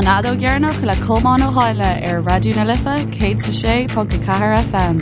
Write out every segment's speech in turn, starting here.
An Fheadóg Dheireanach le Colmán Ó Háinle ar Raidió na Life 106.4 FM.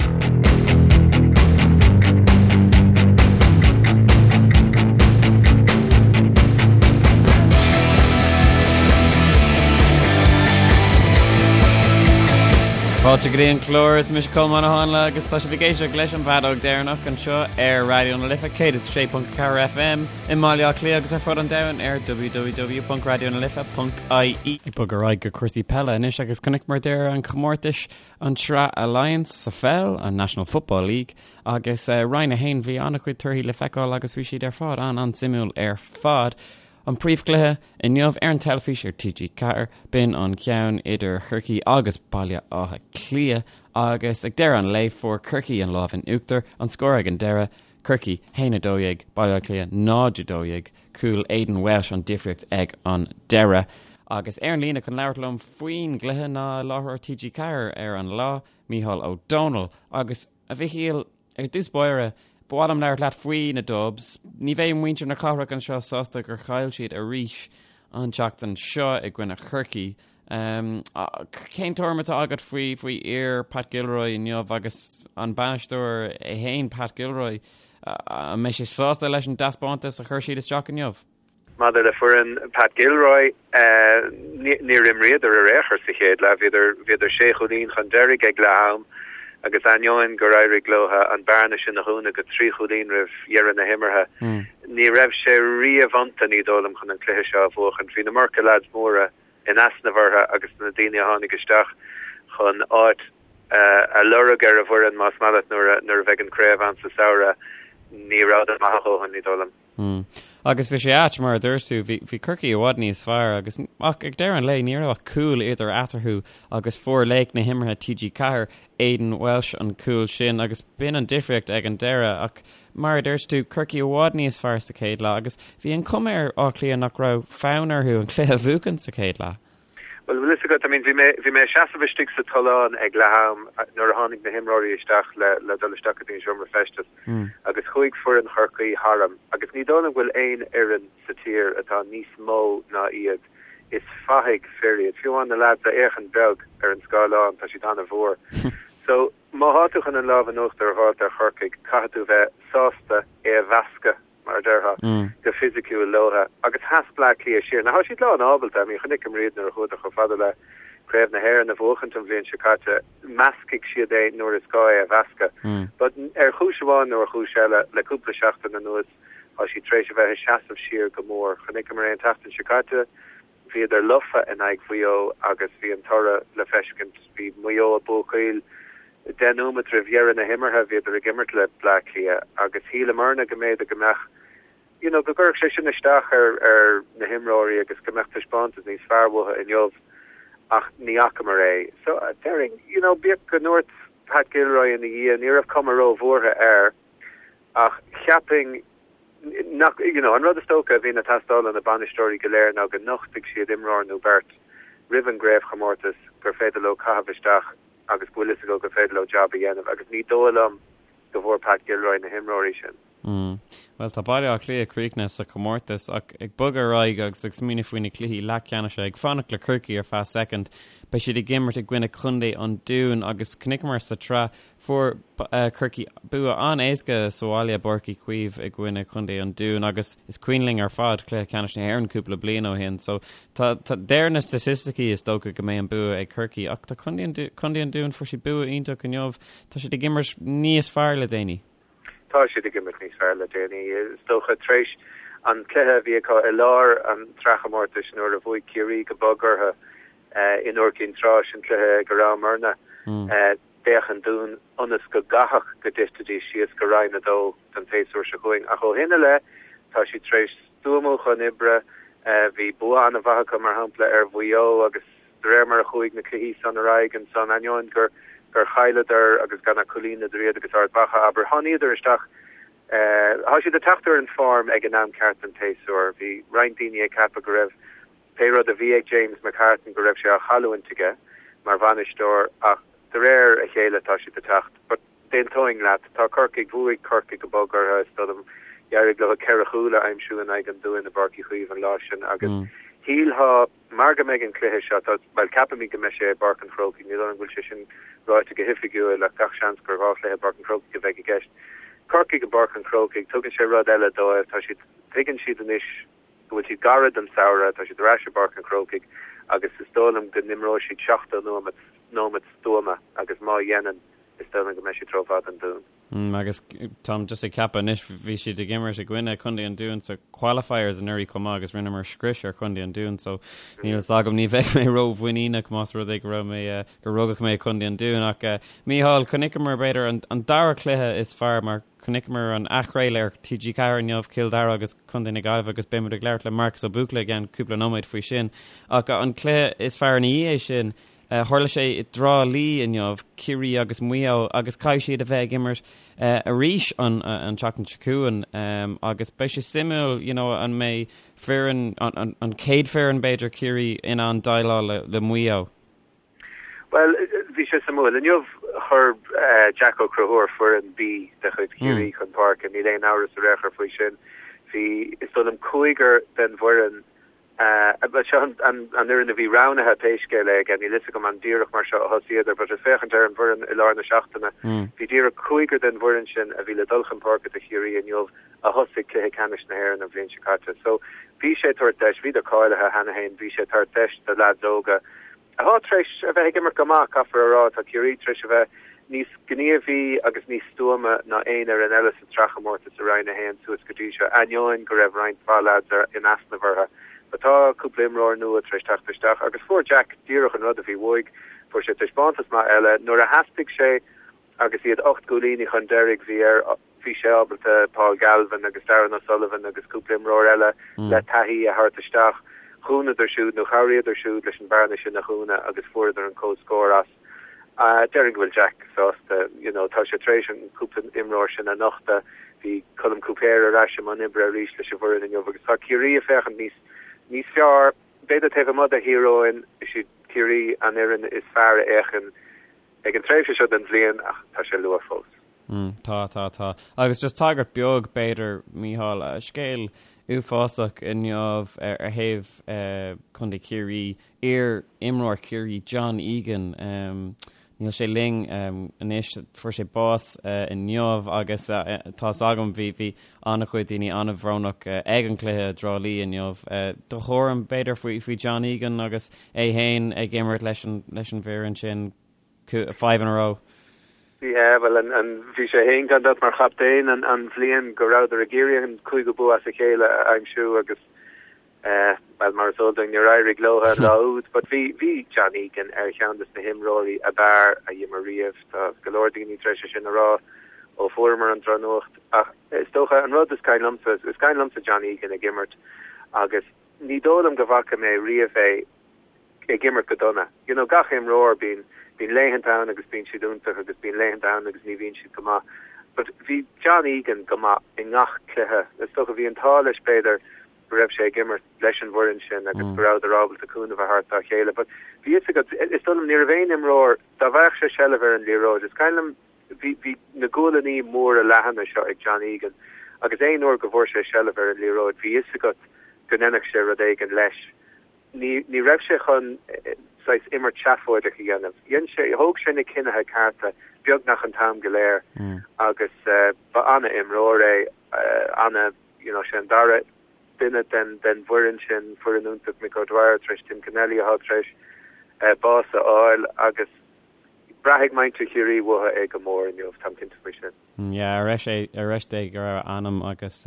Fáilte go dtí an clár is mise Colmán Ó Háinle agus tá sibh ag éisteacht leis an bhFeadóg Dheireanach anseo ar Raidió na Life 106.4 FM. I mBaile Átha Cliath agus ar fud an domhain ar www.raidionalife.ie. Ag bogadh ar aghaidh go cúrsaí peile anois agus chonaiceamar deireadh an chomórtais an tSraith Allianz sa pheil, an National Football League, agus Roinn 1 bhí an-chuid torthaí le feiceáil agus bhí siad ar fad an-an-suimiúil ar fad. An príomhchluiche inniu ar an teilifís ar TG4, b'in an ceann idir Chorcaí agus Baile Átha Cliath agus ag deireadh an lae fuair Corcaigh an lámh in uachtar, an scór ag an deireadh, Corcaigh, 1, 12, Baile Átha Cliath, 0, 12, cúl Aidan Walsh an difríocht ag an deireadh. Agus ar an líne chun labhairt liom faoin gcluiche ná láithreoir TG4 ar an lá, Mícheál Ó Domhnaill. Agus, a Mhichíl, ar dtús báire, ba mhaith liom labhairt leat faoi na Dubs. Ní bheidh muintir na cathrach anseo sásta gur chaill siad arís an tseachtain seo i gcoinne Chorcaí. Cén tuairim atá agat faoi faoi fhir Pat Gilroy inniu agus an bainisteoir é féin Pat Gilroy? An mbeidh sé sásta leis an dtaispeántas a chuir siad isteach inniu? Maidir le foireann Pat Gilroy, níor imríodar ar aon chor sa chéad leath. Bhíodar bhíodar sé chúilín chun deiridh ag leath am agus ainneoin gur éirigh leo an bearna sin a dhúnadh go trí chúilín roimh dheireadh na himeartha, ní raibh sé riamh iontu, ní dóigh liom, chun an cluiche seo a bhuachan. Bhí an iomarca leaids móra in easnamh orthu agus na daoine a tháinig isteach chun áit a lorg ar an bhfoireann, más maith leat, nuair a bheidh an craobh ann sa samhradh, ní rabhadar maith a dhóthain, ní dóigh liom. Mm. Agus bhí sé ait, mar a dúirt tú, bhí, bhí Corcaigh i bhfad níos fearr agus ach ag deireadh an lae ní raibh ach cúl idir eatarthu agus fuair laoch na himeartha TG4, Aidan Walsh an cúl sin agus b'in an difríocht ag an deireadh ach Mar a dúirt tú, Corcaigh i bhfad níos fearr sa chéad leath agus bhí an chuma ar Áth Cliath nach raibh fonn orthu an cluiche a bhuachan sa chéad leath. Bhuel, bhfuil fhios agat, I mean, bhí mé, bhí mé ag seasamh istigh sa tollán ag leath am nuair a tháinig na himreoirí isteach le, le dul isteach go dtí an seomra feistis agus chuaigh foireann Chorcaí tharam agus ní dóigh liom go bhfuil aon fhoireann sa tír atá níos mó ná iad. Is fathaigh fir iad. Fiú amháin na leaids a fhéachann beag ar an scáileán, tá siad an-mhór. So, Má thá tú chun an lámh in uachtar a dh'fháilt ar Chorcaigh, caithfidh tú bheith sásta é a mheascadh, mar a déarfá, go fisiciúil leotha. Agus sheas Bleá Cliath siar. Now, thá siad lán ábalta, I mean, chonaiceamar iad nuair a chuadar chomh fada le Craobh na hÉireann a bhuachaint an bhliain seo caite, meascfaidh siad é nuair is gá é a mheascadh. But ar chúis amháin nó ar chúis eile, le cúpla seachtain anuas, thá siad tar éis a bheith ag seasamh siar go mór. Chonaiceamar é an tseachtain seo caite. Bhíodar lofa in aghaidh Mhaigh Eo agus bhí an toradh le feiscint. Bhí Maigh Eo ag buachaíl deich nóimeat roimh dheireadh na himeartha, bhíodar ag imirt le Bleá Cliath agus shíleamarna go mb'fhéidir go mbeadh, you know, go gcuirfeadh sé sin isteach ar ar na himreoirí agus go mbeadh taispeántas níos fearr uathu inniu ach ní fhacamar é. So, déarfainn, you know, bíodh go ndúirt Pat Gilroy ina dhiaidh, ní raibh cuma róbhuartha air ach cheapfainn, nach, you know, an rud is dócha a bhíonn ag teastáil ó na bainisteoirí go léir ná go nochtfaidh siad imreoir nó beirt roimh an gcraobhchomórtas gur féidir leo caitheamh isteach agus go bhfuil fhios acu gur féidir leo jab a dhéanamh agus ní dóigh liom go bhfuair Pat Gilroy na himreoirí sin. Mm. Bhuel, tá Baile Átha Cliath críochnaithe sa chomórtas ach ag bogadh ar aghaidh agus ag smaoineamh faoi na cluichí leathcheannais ag fanacht le Corcaigh ar feadh soicind, beidh siad ag imirt i gcoinne Chontae an Dúin agus chonaiceamar sa tsraith Fuair Corcaigh bua an-éasca sa bhaile i bPáirc Uí Chaoimh i gcoinne Chontae an Dúin agus is cuimhin linn ar fad cluiche ceannais na hÉireann cúpla bliain ó shin so tá tá deir na staitisticí is dócha go mbeidh an bua ag Corcaigh ach tá Contae an Contae an Dúin fuair siad bua iontach inniu tá siad ag imirt níos fearr le déanaí. Tá siad ag imirt níos fearr le déanaí is dócha tar éis an cluiche a bhí acu i lár an tsraithchomórtais nuair a bhuaigh Ciarraí go bog orthu in Iúr Cinn Trá sin cluiche go rabhamarna. D'fhéach an Dún ionas go gcaithfeadh go dtitfidís síos go Roinn 2 don tséasúr seo chugainn ach ó shin i leith tá siad tar éis stuamú chun oibre. Bhí bua an-mhaith acu, mar shampla, ar Mhaigh Eo agus de réir mar a chuaigh na cluichí san ar aghaidh ansan, ainneoin gur gur chailleadar agus gan ach cúilín idir iad agus Ard Mhacha, abair, tháiníodar isteach. Tá siad ag teacht ar an form ag an am ceart den tséasúr. Bhí roinnt daoine ag ceapadh go raibh Pé rud a bhí ag James McCartan go raibh sé á chailliúint aige mar bhainisteoir ach de réir a chéile tá siad ag teacht. But d'aontóinn leat, tá Corcaigh, bhuaigh Corcaigh go bog orthu is dóigh liom, d'éirigh leo ceithre chúl a aimsiú in aghaidh an Dúin i bPáirc Uí Chaoimh an lá sin agus. Shílfeá, mar go mbeidh an cluiche seo, tá, bhuel, ceapaimid go mbeidh sé i bPáirc an Chrócaigh, ní dóigh liom go bhfuil sé sin ráite go hoifigiúil ach gach seans gur 2 chluiche i bPáirc an Chrócaigh a bheidh i gceist. Corcaigh i bPáirc an Chrócaigh, tugann sé rud eile dóibh, tá siad, tuigeann siad anois go bhfuil siad gairid don samhradh, tá siad ar ais i bPáirc an Chrócaigh agus is dóigh liom go n-imreoidh siad 70 nóiméad, nóiméad stuama agus má dhéanann, is dóigh liom go mbeidh siad rófhada don Dún. Agus táim just ag ceapadh anois, bhí siad ag imirt i gcoinne Contae an Dúin sa qualifiers anuraidh chomh maith agus rinneamar scrios ar Chontae an Dúin so níl fhios agam, ní bheidh mé ró-mhuiníneach más rud é go raibh mé, gur rugadh mé i Contae an Dúin ach Mícheál, chonaiceamar b'fhéidir an, an dara cluiche is fearr mar chonaiceamar an athchraoladh ar TG4 inniu, Cill Dara agus Contae na Gaillimhe agus beidh muid ag labhairt le Marcus Ó Buachalla i gceann cúpla nóiméad faoi sin ach an cluiche is fearr ina dhiaidh sin Tharla sé i dTrá Lí inniu, Ciarraí agus Maigh Eo, agus caithfidh siad a bheith ag imirt arís an tseachtain seo chugainn agus beidh sé suimiúil you know an mbeidh foireann, an chéad foireann b'fhéidir, Ciarraí in ann déileáil le Maigh Eo. Bhuel, bhí sé suimiúil. Inniu chuir Jack Ó Conchúir foireann B de chuid Chiarraí chun páirce, níl aon amhras ar aon chor faoi sin. Bhí, is dóigh liom, cúigear den bhfoireann Bhuel, seo an fhoireann a bhí roghnaithe pé scéal é aige, níl fhios agam an díreach mar seo a thosaíodar, but ag féachaint ar an bhfoireann i lár na seachtaine, bhí díreach cúigear den bhfoireann sin a bhí le dul chun páirce do Chiarraí inniu a thosaigh cluiche ceannais na hÉireann an bhliain seo caite. So, bhí sé ag tabhairt deis, bhíodar cáilithe cheana féin, bhí sé ag tabhairt deis do leaids óga atá tar éis a bheith ag imirt go maith, caithfear a rá. Tá Ciarraí tar éis a bheith níos gníomhaí agus níos stuama ná aon fhoireann eile sa tsraithchomórtas i Roinn 1 suas go dtí seo, ainneoin go raibh roinnt mhaith leaids in easnamh orthu. But tá cúpla imreoir nua tar éis teacht isteach agus fuair Jack díreach an rud a bhí uaidh. Fuair sé taispeántas maith eile. Nuair a theastaigh sé agus iad 8 gcúilíní chun deiridh, bhí air, bhí sé ábalta Paul Galvin agus Darran O'Sullivan agus cúpla imreoir eile le taithí a thabhairt isteach. Dhúnadar siúd nó chabhraíodar siúd leis an bhearna sin a dhúnadh agus fuaireadar an comhscór as. Déarfainn go bhfuil Jack sásta, you know, tá sé tar éis an cúpla imreoir sin a nochtadh. Bhí Colm Cúipéir ar ais i mbun oibre arís leis an bhfoireann inniu agus tá Ciarraí ag féachaint níos níos fearr. B'fhéidir taobh amuigh de Thír Eoghain, is iad Ciarraí an fhoireann is fearr a fhéachann ag an tréimhse seo den bhliain ach tá sé luath fós. Mm, tá, tá, tá. Agus just tagairt beag, b'fhéidir, Mícheál, scéal uafásach inniu ar thaobh Contae Chiarraí, iar-imreoir Chiarraí John Egan, níl sé linn anois, fuair sé bás inniu agus tá's agam bhí bhí an-chuid daoine an-bhrónach ag an gcluiche i dTrá Lí inniu. Do thuairim, b'fhéidir, faoi faoi John Egan agus é féin ag imirt leis an leis an bhfoireann sin five in a row. Yeah, bhuel, an, an, bhí sé féin gan dabht mar chaptaen an, an bhliain go rabhadar ag iarraidh an cúigiú bua as a chéile a aimsiú agus eh, bhuel, mar is eol dúinn, níor éirigh leo an lá úd. But bhí, bhí John Egan ar cheann de na himreoirí ab fhearr a d'imir riamh. Tá go leor daoine tar éis é sin a rá ó fuaireamar an drochnuacht. Ach is dócha an rud is cuimhin liomsa, is cuimhin liomsa John Egan ag imirt agus ní dóigh liom go bhfaca mé riamh é ag imirt go dona. You know, gach imreoir, bíonn, bíonn laethanta ann agus bíonn siad iontach agus bíonn laethanta ann agus ní bhíonn siad go maith. But bhí John Egan go maith i ngach cluiche. Is dócha bhí an t-ádh leis b'fhéidir go raibh sé ag imirt leis an bhfoireann sin agus go rabhadar ábalta cúnamh a thabhairt dá chéile. But bhí fhios agat, is dóigh liom ní raibh aon imreoir, dá bhfaigheadh sé seilbh ar an liathróid, is cuimhin liom bhí, bhí na gualannaí móra leathana seo ag John Egan agus aon uair go bhfuair sé seilbh ar an liathróid bhí fhios agat go ndéanfadh sé rud éigin leis. Ní, ní raibh sé chun saghas imirt seafóideach a dhéanamh. Dhein sé, thóg sé na cinnithe cearta beagnach an t-am go léir agus ba an-imreoir é, ana, you know, sé an dara duine den, den bhfoireann sin, foireann iontach Mick O'Dwyer tar éis Tim Kennelly atá tar éis bás a fháil agus braithfidh muintir Chiarraí uathu é go mór inniu, táim cinnte faoi sin. Yeah, ar dheis é, ar dheis Dé go raibh a anam agus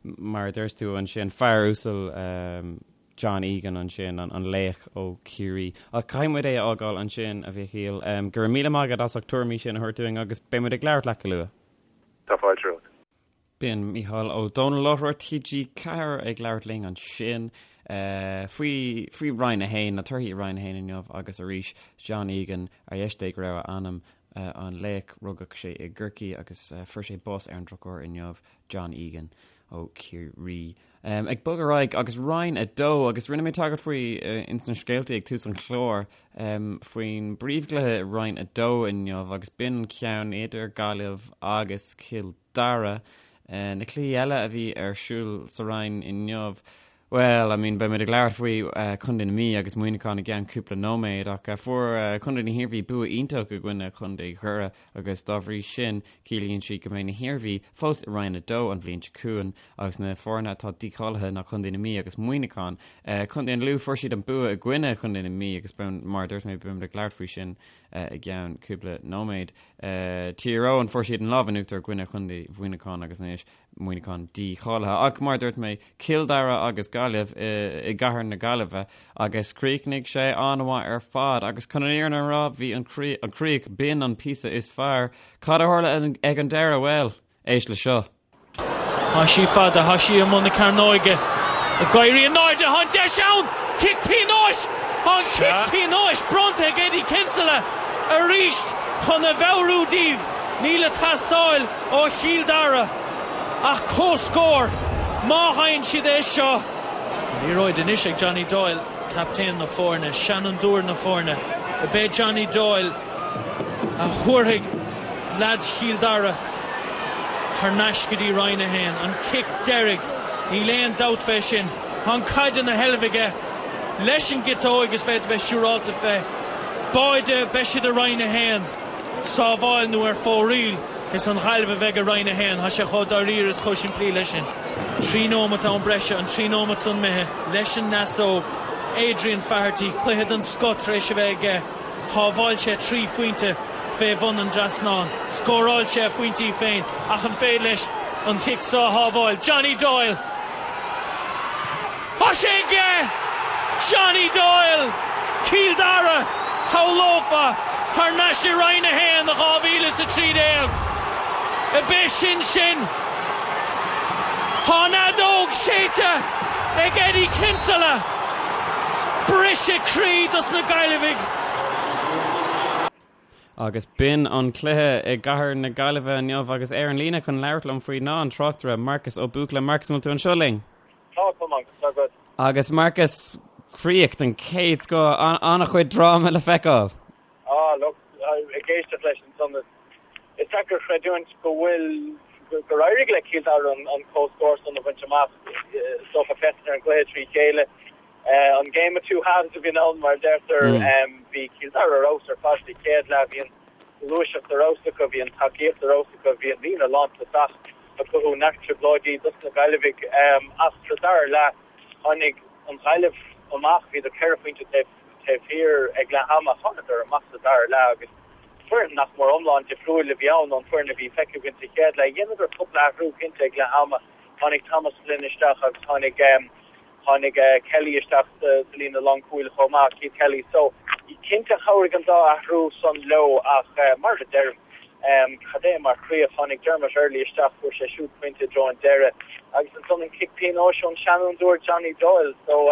mar a dúirt tú ansin, fear uasal John Egan ansin, an laoch ó Chiarraí. Ach caithfidh muid é a fhágáil ansin, a Mhíchíl. Go raibh míle maith agat as ucht tuairimí sin a thabhairt dúinn agus beidh muid ag labhairt leat go luath. Tá fáilte romhat. B'in Mícheál Ó Domhnaill, láithreoir TG4 ag labhairt linn ansin faoi faoi Roinn 1, na torthaí i Roinn 1 inniu agus arís John Egan, ar dheis Dé go raibh a anam, an laoch, rugadh sé i gCorcaigh agus fuair sé bás ar an drochuair inniu, John Egan ó Chiarraí. Ag bogadh ar aghaidh agus Roinn 2 agus rinne mé tagairt faoi ins na scéaltaí ag tús an chláir faoin bpríomhchluiche i Roinn 2 inniu agus b'in an ceann idir Gaillimh agus Cill Dara. Na cluichí eile a bhí ar siúl sa Roinn inniu. Bhuel, I mean, beimid ag labhairt faoi Chontae na Mí agus Muineachán i gceann cúpla nóiméad ach fuair Contae na hIarmhí bua iontach i gcoinne Chontae Dhoire agus dá bhrí sin ciallaíonn sé go mbeidh na hIarmhí fós i Roinn 2 an bhliain seo chugainn agus na foirne atá dícháilithe ná Contae na Mí agus Muineachán. Contae an Lú fuair siad an bua i gcoinne Chontae na Mí agus mar a dúirt mé beimid ag labhairt faoi sin i gceann cúpla nóiméad. Tír Eoghain fuair siad an lámh in uachtar i gcoinne Chontae Mhuineacháin agus anois Muineachán dícháilithe. Ach mar a dúirt mé, Cill Dara agus Gaillimh i gcathair na Gaillimhe agus chríochnaigh sé an-mhaith ar fad agus chun an fhírinne a rá, bhí an chríoch, b'in an píosa is fearr. Cad a tharla ag an deireadh? Bhuel, éist le seo. Tá sí fada, tá sí i mbun na cearnóige. Ag éirí in airde, tá an deis ann! Cic pionóis! Tá an cic pionóis bronnta ag Eddie Kinsella arís chun a mheabhrú díobh níl ag teastáil ó Chill Dara ach comhscór má fhaigheann siad é seo. An liathróid anois ag Johnny Doyle, captaen na foirne, seanfhondúir na foirne. Ab é Johnny Doyle a thabharfaidh leaids Chill Dara thar n-ais go dtí Roinn 1. An cic deiridh, níl aon dabht fé sin. Tá an caid ina sheilbh aige leis an gciotóig is féidir bheith siúrálta fé. Báide, beidh siad i Roinn 1. Sábháil nó ar fóraoil. Is an Ghaillimh a bheidh i Roinn 1. Tá sé chomh dáiríre is chomh simplí leis sin. 3 nóimeat am breise, an 3 nóimeat san imithe leis an ndeasóg. Adrian Faherty, cluiche den scoth tar éis a bheith aige. Shábháil sé 3 phointe fé bhun an trasnáin. Scóráil sé a phointí féin ach an féidir leis an chic seo a shábháil? Johnny Doyle! Tá sé aige! Johnny Doyle! Cill Dara, shamhlófá, thar n-ais i Roinn 1 i 2013. Ab é sin sin? Tá an fheadóg séidte ag Eddie Kinsella! Briseadh croí dos na Gaillimhigh! Agus b'in an cluiche i gcathair na Gaillimhe inniu agus ar an líne chun labhairt liom faoi ná an tráchtaire Marcus Ó Buachalla. Marcus, an bhfuil tú anseo linn? Tá, tá Marcus, tá agat. Agus Marcus, críoch den chéad scoth, an-chuid dráma le feiceáil. Ah, look, ag éisteacht leis ansan, is deacair creidiúint go bhfuil, gur éirigh le Cill Dara an comhscór san a bhaint amach. Is dócha féachaint ar an gcluiche trí chéile. An game of two halves a bhíonn ann, mar a deirtear. Bhí Cill Dara ar fheabhas ar fad sa chéad leath. Bhí an ghluaiseacht ar fheabhas acu, bhí an tacaíocht ar fheabhas acu, bhí an líne lántosach ag cothú neart trioblóidí dos na Gaillimhigh. Ach sa dara leath, tháinig an Ghaillimh amach, bhíodar ceithre phointe taobh thiar ag leath ama, thánadar amach sa dara leath agus foireann nach mór iomlán difriúil a bhí ann ón bhfoireann a bhí feicthe againn sa chéad leath. Dheineadar cúpla athrú cinnte ag leath ama. Tháinig Thomas Flynn isteach agus tháinig. Tháinig Kelly isteach sa líne lánchúil chomh maith, Keith Kelly. So, cinnte chabhraigh an dá athrú san leo ach mar a deirim, cad é mar chríoch. Tháinig Dermot Earley isteach, fuair sé siúd pointe i dtreo an deireadh agus ansan an cic pionóis ón seanfhondúir Johnny Doyle. So,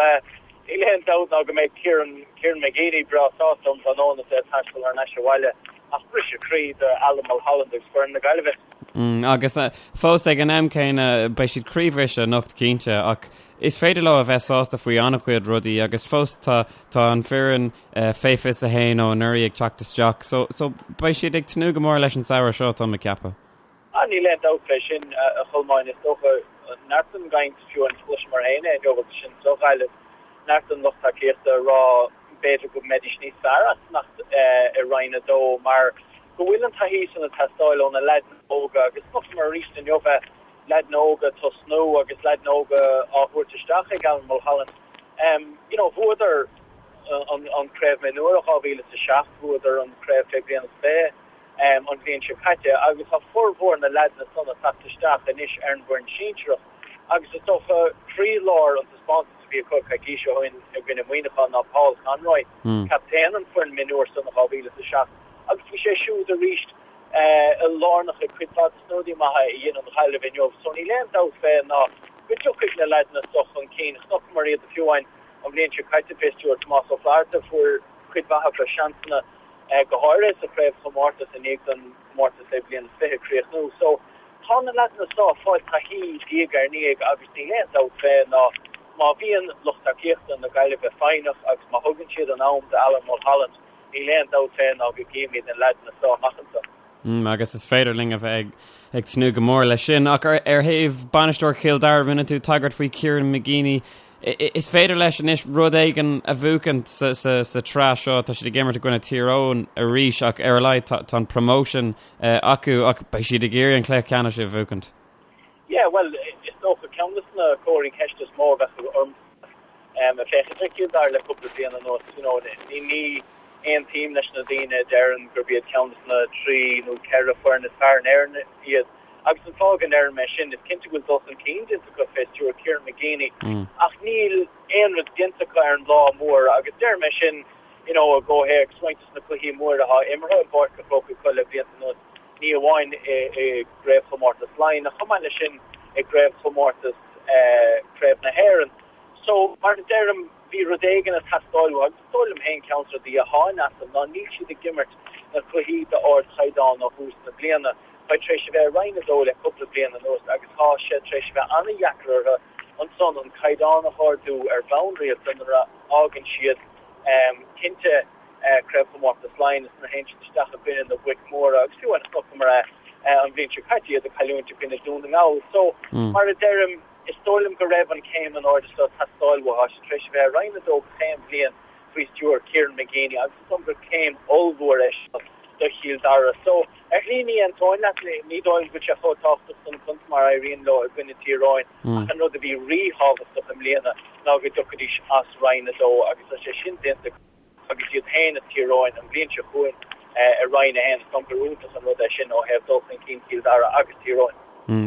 níl aon dabht ná go mbeidh Kieran, Kieran McGeeney breá sásta um thráthnóna is é ag taisteal thar n-ais abhaile ach briseadh croí do Alan Mulholland agus foireann na Gaillimhe. Agus fós ag an am céanna, beidh siad croíbhriste anocht cinnte, ach is féidir leo a bheith sásta faoi an-chuid rudaí agus fós tá tá an foireann fé 21 ó anuraidh ag teacht isteach, so so beidh siad ag tnúth go mór leis an samhradh seo, tá mé ag ceapadh. Ah, níl aon dabht fé sin, a Cholmáin. Is dócha, neart den gcaint, fiú amháin chloiseamar féin é inniu agus sinn sa Ghaillimh, neart den lucht tacaíochta ag rá b'fhéidir go mbeidís níos fearr as fanacht i Roinn 2 mar go bhfuil an taithí san ag teastáil ó na leaideanna óga agus chonaiceamar arís inniu é, leaideanna óga ag tosnú agus leaideanna óga á thabhairt isteach ag Alan Mulholland. You know, bhuadar an Craobh Mionúir i 2007, bhuadar an Craobh Fé Bliain is 20 an bhliain seo caite agus tá formhór na leaideanna san ag teacht isteach anois ar an bhfoireann sinsearach agus is dócha croílár an taispeántais a bhí acu coicís ó shin i gcoinne Muineacháin ná Paul Conroy, captaen an foireann mionúir san i 2007 agus bhí sé siúd arís lárnach i cuid mhaith de na rudaí maithe a dhein an Ghaillimh inniu. So níl aon dabht fé ná go dtiocfaidh na leaideanna so chun cinn. Chonaiceamar iad fiú amháin an bhliain seo caite fé stiúir Tomás Ó Flatharta, fuair cuid mhaith acu seansanna go háirithe sa chraobhchomórtas i ndiaidh don chomórtas fé bliain is 20 críochnú. So tá na leaideanna so ag fáil taithí diaidh ar ndiaidh agus níl aon dabht fé ná má bhíonn lucht tacaíochta na Gaillimhe foighneach agus má thugann siad an am d'Alan Mulholland, níl aon dabht fé ná go gcífimid na leaideanna so amach anso. Mm, agus is féidir linn a bheith ag, ag tnúth go mór leis sin, ach ar, ar thaobh bainisteoir Chill Dara rinne tú tagairt faoi Kieran McGeeney. Is féidir leis anois rud éigin a bhuachaint sa tsraith seo, tá siad ag imirt i gcoinne Tír Eoghain arís ach ar a laghad tá an promotion acu ach beidh siad ag iarraidh an cluiche ceannais a bhuachaint. Yeah, bhuel, is dócha ceann de na comharthaí ceiste is mó a bheadh orm ag féachaint ar Chill Dara le cúpla bliain anuas, you know, ní aontaím leis na daoine a deireann gurb iad ceann de na 3 nó 4 foireann is fearr in Éirinn iad. Agus an fáth go ndeirim é sin, is cinnte go bhfuil dul chun cinn déanta acu fé stiúir Kieran McGeeney, ach níl aon rud déanta acu ar an lá mór agus deirim é sin, you know, i gcomhthéacs roinnt de na cluichí móra atá imeartha i bPáirc an Chrócaigh acu le blianta anuas, ní amháin i gcraobhchomórtas Laighean ach chomh maith leis sin i gcraobhchomórtas Craobh na hÉireann. So, mar a deirim, bhí rud éigin ag teastáil uathu agus is dóigh liom féin ceann de na rudaí atá in easnamh ná níl siad ag imirt na cluichí d'ardchaighdeán ó thús na bliana. Tá tar éis a bheith i Roinn 2 le cúpla bliain anuas agus tá sé tar éis a bheith an-dheacair orthu ansan an caighdeán a hardú ar bhonn rialta nuair a fhágann siad cinnte Craobhchomórtas Laighean is nuair a théann siad isteach i gcoinne na boic mhóra agus fiú amháin chonaiceamar é an bhliain seo caite iad ag cailliúint i gcoinne Dún na nGall. So, mar a deirim, Is dóigh liom go raibh an céim in airde seo ag teastáil uathu. Tá siad tar éis a bheith i Roinn 2 gach aon bhliain faoi stiúir Kieran McGeeney agus is dóigh liom gur céim ollmhór é seo do Chill Dara. So, ar shlí ní aontóinn leat, ní dóigh liom go bhfuil sé chomh tábhachtach don chontae mar a éiríonn leo i gcoinne Tír Eoghain ach an rud a bhí ríthábhachtach i mbliana ná go dtiocfaidís as Roinn 2 agus tá sé sin déanta acu. agus iad féin is Tír Eoghain an bhliain seo chugainn i Roinn 1. Is dóigh liom gur iontach an rud é sin ó thaobh dul chun cinn Chill Dara agus Tír Eoghain.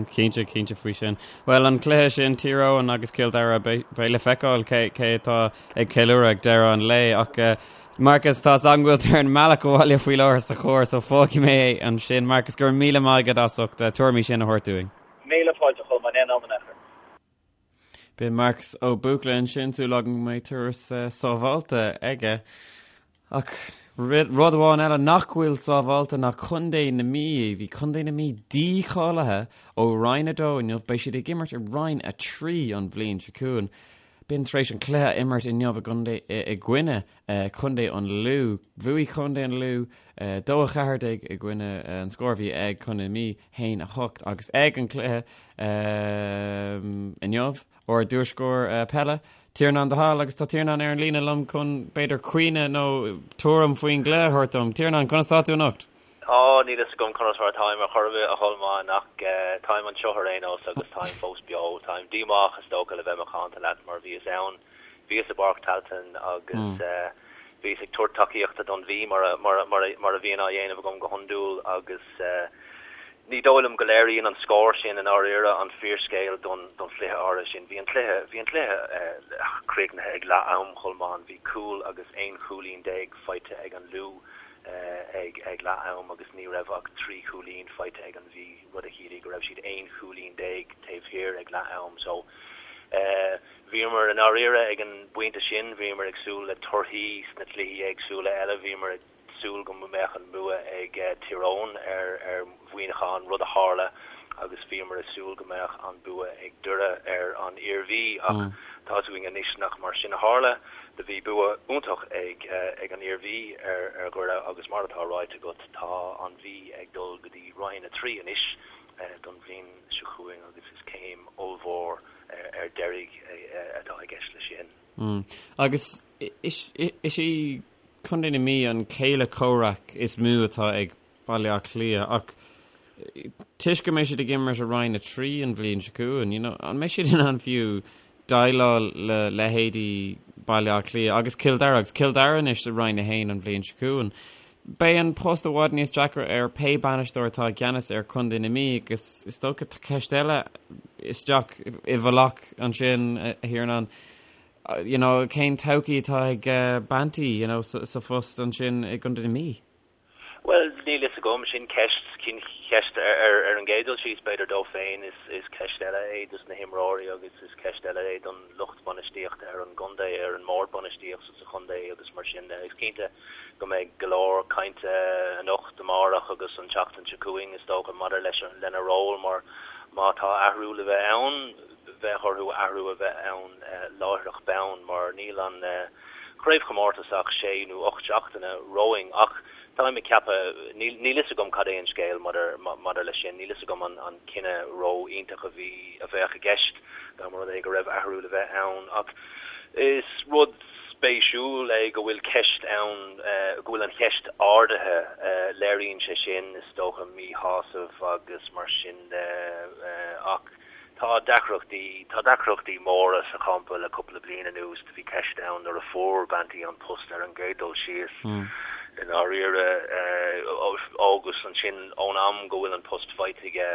Cinnte, cinnte faoi sin. Bhuel, an cluiche sin, Tír Eoghain agus Cill Dara, beidh le feiceáil cé cé atá ag ceiliúradh ag deireadh an lae. Ach Marcus, tá 's agam go bhfuil tú ar an mbealach abhaile faoi láthair sa charr, so fágfaidh mé é ansin. Marcus, go raibh míle maith agat as ucht na tuairimí sin a thabhairt dúinn. Míle fáilte, a Cholmáin, aon am in aon chor. B'in Marcus Ó Buachalla ansin, súil agam go mbeidh turas sábháilte aige. Ach rud amháin eile nach bhfuil sábháilte ná Contae na Mí. Bhí Contae na Mí dícháilithe ó Roinn 2 inniu, beidh siad ag imirt i Roinn 3 an bhliain seo chugainn. B'in tar éis an cluiche a imirt inniu i gcoinne Contae an Lú. Bhuaigh Contae an Lú 2-14 i gcoinne an scór a bhí ag Contae na Mí, 1-8 agus ag an cluiche inniu, ár dtuairisceoir peile, Tiarnán de Hál, agus tá Tiarnán ar an líne liom chun, b'fhéidir, cuimhne nó tuairim faoin gcluiche a thabhairt dom. Tiarnán, conas tá tú anocht? Á, níl fhios agam conas mar atáim ar chor ar bith, a Cholmáin, ach táim anseo ar aon nós agus táim fós beo. Táim díomách, is dócha, le bheith macánta leat, mar bhíos ann, bhíos i bPáirc Tailteann agus bhíos ag tabhairt tacaíochta don Mhí, mar a, mar a, mar a bhíonn á dhéanamh agam go hiondúil agus Ní dóigh liom go léiríonn an scór sin i ndáiríre an fíorscéal don chluiche áirithe sin. Bhí an cluiche, bhí an cluiche críochnaithe ag leath am, Cholmáin. Bhí cúl agus 11 chúilín faighte ag an Lú ag ag leath am agus ní raibh ach 3 chúilín faighte ag an Mhí, rud a chiallaigh go raibh siad 11 chúilín taobh thiar ag leath am. So, bhíomar i ndáiríre ag an bpointe sin, bhíomar ag súil le torthaí sna cluichí éagsúla eile, bhíomar ag. súil go mbeadh an bua ag Tír Eoghain ar Mhuineachán, rud a tharla, agus bhíomar ag súil go mbeadh an bua ag Doire ar an Iarmhí, ach tá 'fhios againn anois nach mar sin a tharla. Do bhí bua iontach ag ag an Iarmhí ar ar Dhoire agus mar atá ráite agat, tá an Mhí ag dul go dtí Roinn 3 anois don bhliain seo chugainn agus is céim ollmhór ar deiridh atá i gceist leis sin. Agus is í Contae na Mí an céile comhraic is mó atá ag Baile Átha Cliath ach toisc go mbeidh siad ag imirt i Roinn 3 an bhliain seo chugainn, you know, an mbeidh siad in ann fiú déileáil le leithéidí Baile Átha Cliath agus Cill Dara agus Cill Dara anois i Roinn 1 an bhliain seo chugainn. Beidh an post i bhfad níos deacra ar pé bainisteoir atá i gceannas ar Chontae na Mí agus is dócha tá ceist eile isteach i bhfolach ansin, a Thiarnáin. You know, cén todhchaí atá ag Banty, you know, sa phost ansin i gContae na Mí? Bhuel, níl fhios agam. Sin ceist, sin ceist ar ar an gcéad dul síos, b'fhéidir dó féin. Is is ceist eile é dos na himreoirí agus is ceist eile é don lucht bainistíochta ar an gcontae, ar an mbord bainistíochta sa chontae agus mar sin de. Is cinnte go mbeidh go leor cainte anocht, amárach agus an tseachtain seo chugainn, is dócha, maidir leis lena ról mar má tá athrú le bheith ann, bheadh orthu athrú a bheith ann láithreach bonn mar níl an chraobhchomórtas ach sé nó 8 seachtaine romhainn ach táim ag ceapadh, níl fhios agam cad é an scéal maidir leis sin, níl fhios agam an cinneadh ró-iontach a bhí, a bheadh i gceist. dá mba rud é go raibh athrú le bheith ann. Ach is rud spéisiúil é go bhfuil ceist ann, go bhfuil an cheist ardaithe. Léiríonn sé sin, is dócha, míshásamh agus mar sin de. Ach tá deacrachtaí, tá deacrachtaí móra sa champa le cúpla bliain anuas. Do bhí ceist ann nuair a fuair Banty an post ar an gcéad dul síos, i ndáiríre, agus ansin ón am go bhfuil an post faighte aige,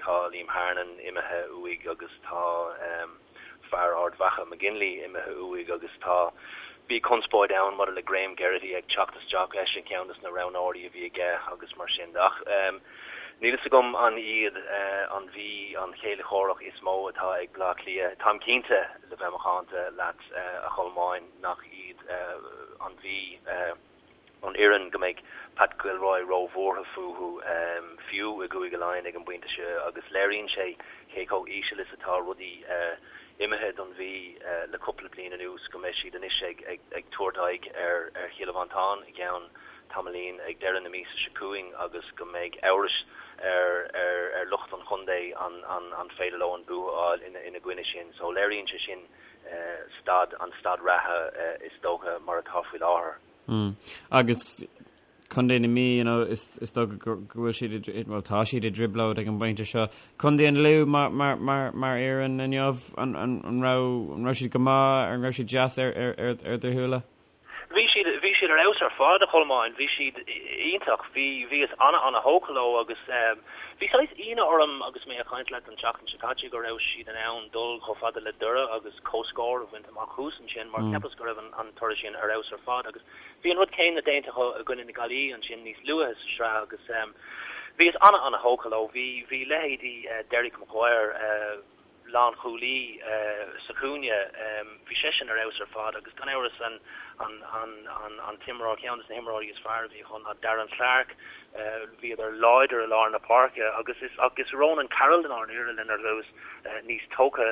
tá Liam Hernon imithe uaidh agus tá fear Ard Mhacha, McGinley, imithe uaidh agus tá, bhí conspóid ann maidir le Graham Geraghty ag teacht isteach, eisean ceann des na roghnóirí a bhí aige agus mar sin de. Ach níl fhios agam an iad an Mhí an chéile chomhrac is mó atá ag Bleá Cliath. Táim cinnte, le bheith macánta leat, a Cholmáin, nach iad an Mhí an fhoireann go mbeidh Pat Gilroy róbhuartha fúthu, fiú i gCúige Laighean ag an bpointe seo, agus léiríonn sé cé chomh íseal is atá rudaí imithe don Mhí le cúpla bliain anuas, go mbeidh siad anois ag tabhairt aghaidh ar Chill Mhantáin i gceann tamaillín ag deireadh na míosa seo chugainn agus go mbeidh amhras ar lucht an chontae an féidir leo an bua a fháil ina gcoinne sin. So léiríonn sé sin staid, an staid reatha is dócha mar atá faoi láthair. Mm. Agus Contae na Mí, you know, is, is dócha go, go bhfuil siad i, well, tá siad i dtrioblóid ag an bpointe seo. Contae an Lú mar, mar, mar, mar fhoireann inniu, an, an, an raibh, an raibh siad go maith, an raibh siad deas ar, ar, ar, ar do shúile? Bhí siad, bhí siad ar fheabhas ar fad, a Cholmáin. Bhí siad iontach. Bhí, bhíos ana-ana-thógtha leo agus bhí saghas ionadh orm agus mé ag caint leat an tseachtain seo caite go raibh siad in ann dul chomh fada le Doire agus comhscór a bhaint amach thuas ansin mar cheapas go raibh an, an toradh sin ar fheabhas ar fad agus bhí an rud céanna déanta acu i gcoinne na Gaillimhe ansin níos luaithe sa sraith agus bhíos ana-ana-thógtha leo. Bhí, bhí leithéidí Derek Maguire, lánchúlaí sa chúinne. Bhí seisean ar fheabhas ar fad agus gan amhras an an t-imreoir, ceann de na himreoirí is fearr a bhí acu ná Darren Clarke. Bhíodar láidir i lár na páirce agus is agus Ronan Carroll i ndáiríre lena rabhas níos tógtha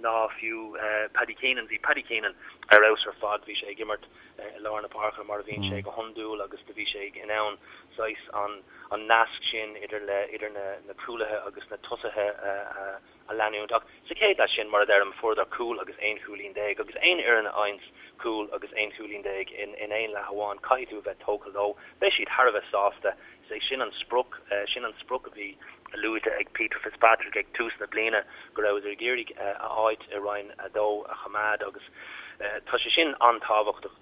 ná fiú Paddy Keenan. Bhí Paddy Keenan ar fheabhas ar fad. Bhí sé ag imirt i lár na páirce mar a bhíonn sé go hiondúil agus do bhí sé in ann saghas an an nasc sin idir le idir na na cúlaithe agus na tosaithe a a leanúint. Ach sa chéad leath sin, mar a deirim, fuaireadar cúl agus aon chúilín déag agus aon fhoireann a fhaigheanns cúl agus aon chúilín déag in in aon leath amháin, caithfidh tú a bheith tógtha leo. Beidh siad thar a bheith sásta. Is é sin an sprioc, sin an sprioc a bhí luaite ag Peter Fitzpatrick ag tús na bliana, go rabhadar ag iarraidh a áit i Roinn 2 a choimeád agus tá sé sin an-tábhachtach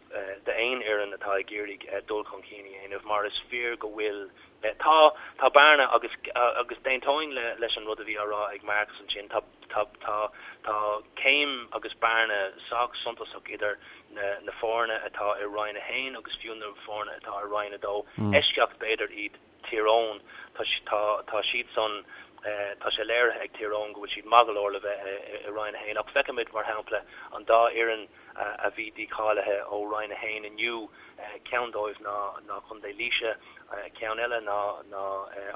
d'aon fhoireann atá ag iarraidh dul chun cinn a dhéanamh mar is fíor go bhfuil, tá, tá bearna agus, agus d'aontóinn leis an rud a bhí á rá ag Marcus ansin, tá, tá, tá, tá céim agus bearna sách suntasach idir na, na foirne atá i Roinn 1 agus fiú na foirne atá i Roinn 2. Eisceacht b'fhéidir iad Tír Eoghain, tá, tá, tá siad san, tá sé léirithe ag Tír Eoghain go bhfuil siad maith go leor le bheith i Roinn 1 ach feicimid, mar shampla, an dá fhoireann a bhí dícháilithe ó Roinn 1 inniu, ceann dóibh ná, ná Contae Laoise, ceann eile ná, ná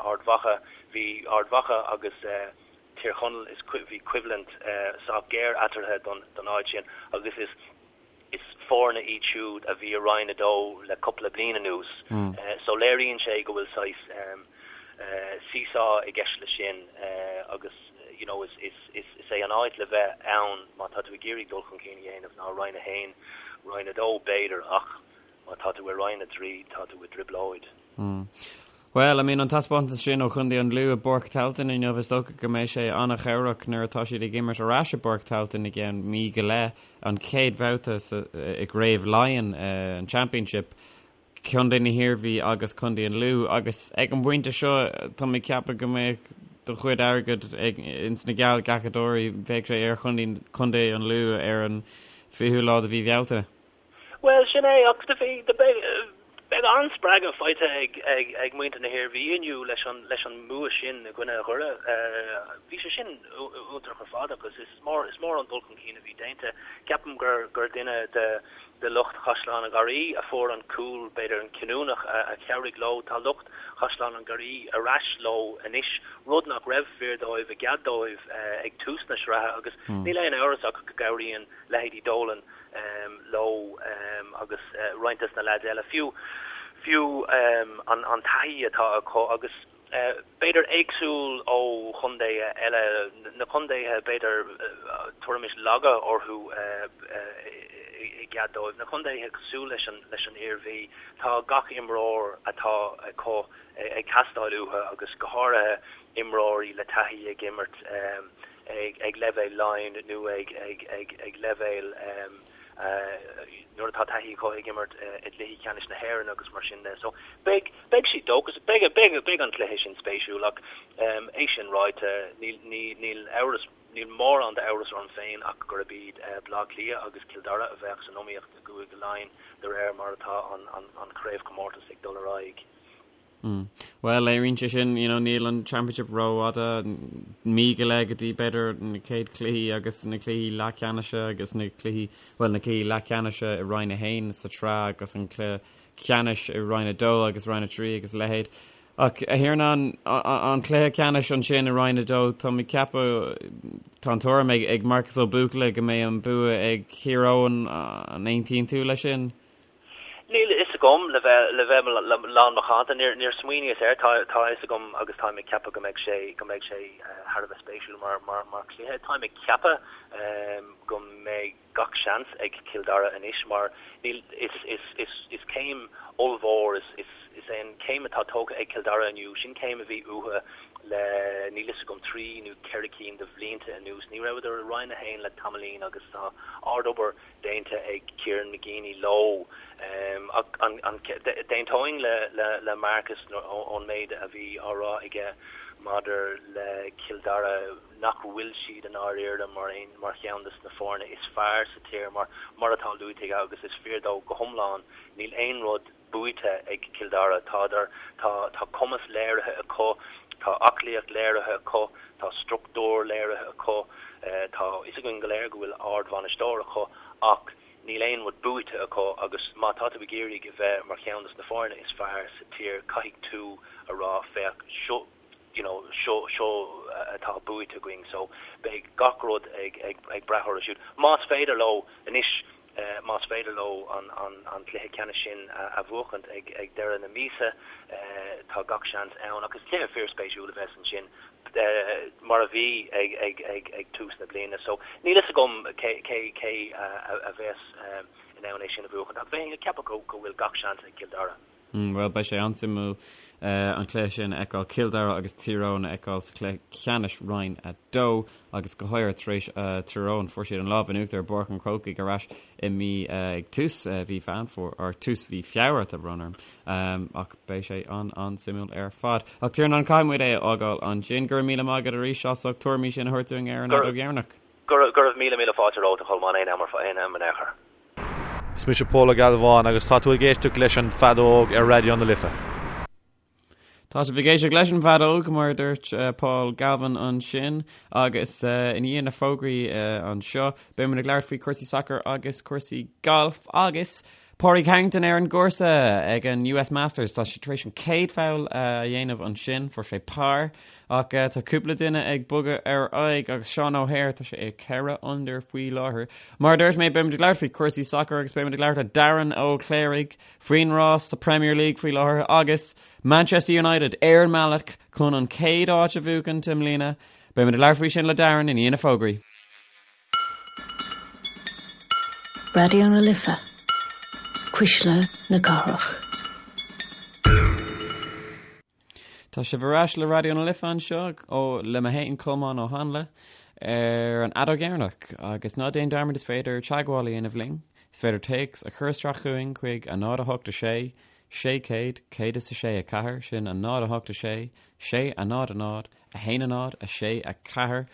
Ard Mhacha. Bhí Ard Mhacha agus Tír Chonaill, is, bhí coimhlint sách géar eatarthu don, don áit sin agus is. Is foirne iad siúd a bhí i Roinn 2 le cúpla bliain anuas so léiríonn sé go bhfuil saghas seesaw i gceist leis sin agus you know is is is é an áit le bheith ann má tá tú ag iarraidh dul chun cinn a dhéanamh ná Roinn 1, Roinn 2 b'fhéidir ach má tá tú i Roinn 3 tá tú i dtrioblóid. Bhuel, I mean, an taispeántas sin ó Chontae an Lú i bPáirc Tailteann inniu, is dócha go mbeidh sé an-chabhrach nuair atá siad ag imirt ar ais i bPáirc Tailteann i gceann mí go leith, an chéad bhabhta i gCraobh Laighean, an Championship, Contae na hIarmhí agus Contae an Lú. Agus ag an bpointe seo, tá mé ag ceapadh go mbeadh do chuid airgid ag ins na geallghlacadóirí, bheadh sé ar Chontae an Lú ar an 20ú lá de mhí Bhealtaine. Bhuel, sin é, ach do bhí, do beidh, beidh an-spreagadh faighte ag, ag, ag muintir na hIarmhí inniu leis an, leis an mbua sin i gcoinne Dhoire. Bhí sé sin iontach ar fad agus is mór, is mór an dul chun cinn a bhí déanta. Ceapaim gur, gur duine de, de lucht Chaisleán an Gharraí a fuair an cúl, b'fhéidir an cinniúnach a, a chabhraigh leo. Tá lucht Chaisleán an Gharraí ar ais leo anois, rud nach raibh fíor dóibh i gcead dóibh ag tús na sraithe agus níl aon amhras ach go gcabhraíonn leithéidí Dolan, leo agus roinnt des na leaids eile, fiú fiú an taithí atá acu agus. B'fhéidir éagsúil ó chontaetha eile, na contaetha b'fhéidir tabharfaimis laga orthu i gcead dóibh, na contaetha cosúil leis an leis an Iarmhí, tá gach imreoir atá acu ag teastáil uathu agus go háirithe imreoirí le taithí ag imirt ag leibhéal Laighean nó ag ag ag ag leibhéal nuair atá taithí acu ag imirt i gcluichí ceannais na hÉireann agus mar sin de. So beidh, beidh siad dóchasach, beidh, beidh, beidh an cluiche sin spéisiúil ach é sin ráite, níl, ní, níl amhras, níl mórán d'amhras orm féin ach gurb iad Baile Átha Cliath agus Cill Dara a bheadh san iomaíocht i gCúige Laighean de réir mar atá an, an, an chraobhchomórtas ag dul ar aghaidh. Mm. Bhuel, léiríonn sé sin, you know, níl an Championship rófhada, mí go leith go dtí b'fhéidir na chéad cluichí agus na cluichí leathcheannais agus na cluichí, bhuel, na cluichí leathcheannais i Roinn 1 sa tsraith agus an cluiche ceannais i Roinn 2 agus Roinn 3 agus a leithéid. Ach a Thiarnáin, an cluiche ceannais ansin i Roinn 2, tá mé ag ceapadh, tá an tuairim ag, ag Marcus Ó Buachalla go mbeidh an bua ag Thír Eoghain, an aontaíonn tú leis sin? Níl a fhios agam, le bheith, le bheith lán macánta, níor, níor smaoiníos air. Tá, tá a fhios agam agus táim ag ceapadh go mbeidh sé, go mbeidh sé thar a bheith spéisiúil mar, mar, mar chluiche. Táim ag ceapadh go mbeidh gach seans ag Cill Dara anois mar níl, is, is, is, is céim ollmhór, is, is, is é an chéim atá tógtha ag Cill Dara inniu, sin céim a bhí uathu le, níl fhios agam, trí nó ceithre cinn de bhlianta anuas. Ní rabhadar i Roinn 1 le tamaillín agus tá ard-obair déanta ag Kieran McGeeney leo. Ach d'aontóinn le Marcus ón méid a bhí á rá aige maidir le Cill Dara, nach bhfuil siad i ndáiríre mar aon mar cheann de na foirne is fearr sa tír mar mar atá luaite aige agus is fíor dó go hiomlán. Níl aon rud buaite ag Cill Dara. Tádar, tá, tá cumas léirithe acu, tá aclaíocht léirithe acu, tá struchtúr léirithe acu, tá fhios againn go léir go bhfuil ardbhainisteoir acu ach níl aon rud buaite acu agus má tá tú ag iarraidh a bheith mar cheann des na foirne is fearr sa tír caithfidh tú a rá féach seo you know seo seo atá buaite againn so beidh gach rud ag ag ag brath orthu siúd. Más féidir leo anois Más féidir leo an cluiche ceannais sin a bhuachaint ag deireadh na míosa, tá gach seans ann. Ach is cluiche fíorspéisiúil a bheas ansin, mar a bhí ag tús na bliana. So níl fhios agam cé a bheas in ann é sin a bhuachaint, ach bheinn ag ceapadh go bhfuil gach seans ag Cill Dara. Bhuel, beidh sé an-suimiúil an cluiche sin a fheiceáil, Cill Dara agus Tír Eoghain a fheiceáil sa chluiche ceannais Roinn 2 agus go háirithe tar éis Tír Eoghain, fuair siad an lámh in uachtar i bPáirc an Chrócaigh ar ais i mí ag tús mhí Mheán Fómhair, or tús mhí Feabhra, tá brón orm, ach beidh sé an-an-suimiúil ar fad. Ach Tiarnán, caithfidh muid é a fhágáil ansin. Go raibh míle maith agat arís as ucht tuairimí sin a thabhairt dúinn ar an Fheadóg Dheireanach. Go raibh míle míle fáilte romhat a Cholmáin, aon am aon am in aon chor. Is mise Pól Ó Gealbháin agus tá tú ag éisteacht leis an bhFeadóg ar Raidió na Life. Tá sibh ag éisteacht leis an bhFeadóg, mar a dúirt Paul Galvin ansin, agus i ndiaidh na fógraí anseo, beidh muid ag labhairt faoi chúrsaí sacair agus cúrsaí gailf agus Pádraig Harrington ar an gcúrsa ag an US Masters. Tá sé tar éis an chéad pholl a dhéanamh ansin, fuair sé par. Ach tá cúpla duine ag bogadh ar aghaidh agus Seán O'Hare, tá sé ag 4 under faoi láthair. Mar a dúirt mé, beimid ag labhairt faoi chúrsaí sacair agus beimid ag labhairt le Darren Ó Cléirigh faoin rás sa Premier League faoi láthair agus Manchester United ar an mbealach chun an chéad áit a bhuachaint i mbliana. Beimid ag labhairt faoi sin le Darren i ndiaidh na fógraí. Raidió na Life, Cuisle na Cathrach. Tá sibh ar ais le Raidió na Life anseo ó le mé féin Colmán Ó Hanla ar an Fheadóg Dheireanach agus ná déan dearmad is féidir teagmháil a dhéanamh linn. Is féidir téacs a chur isteach chugainn chuig 0 8 6 600 106 4 sin 0 8 6 6 0 0 1 0 6 4.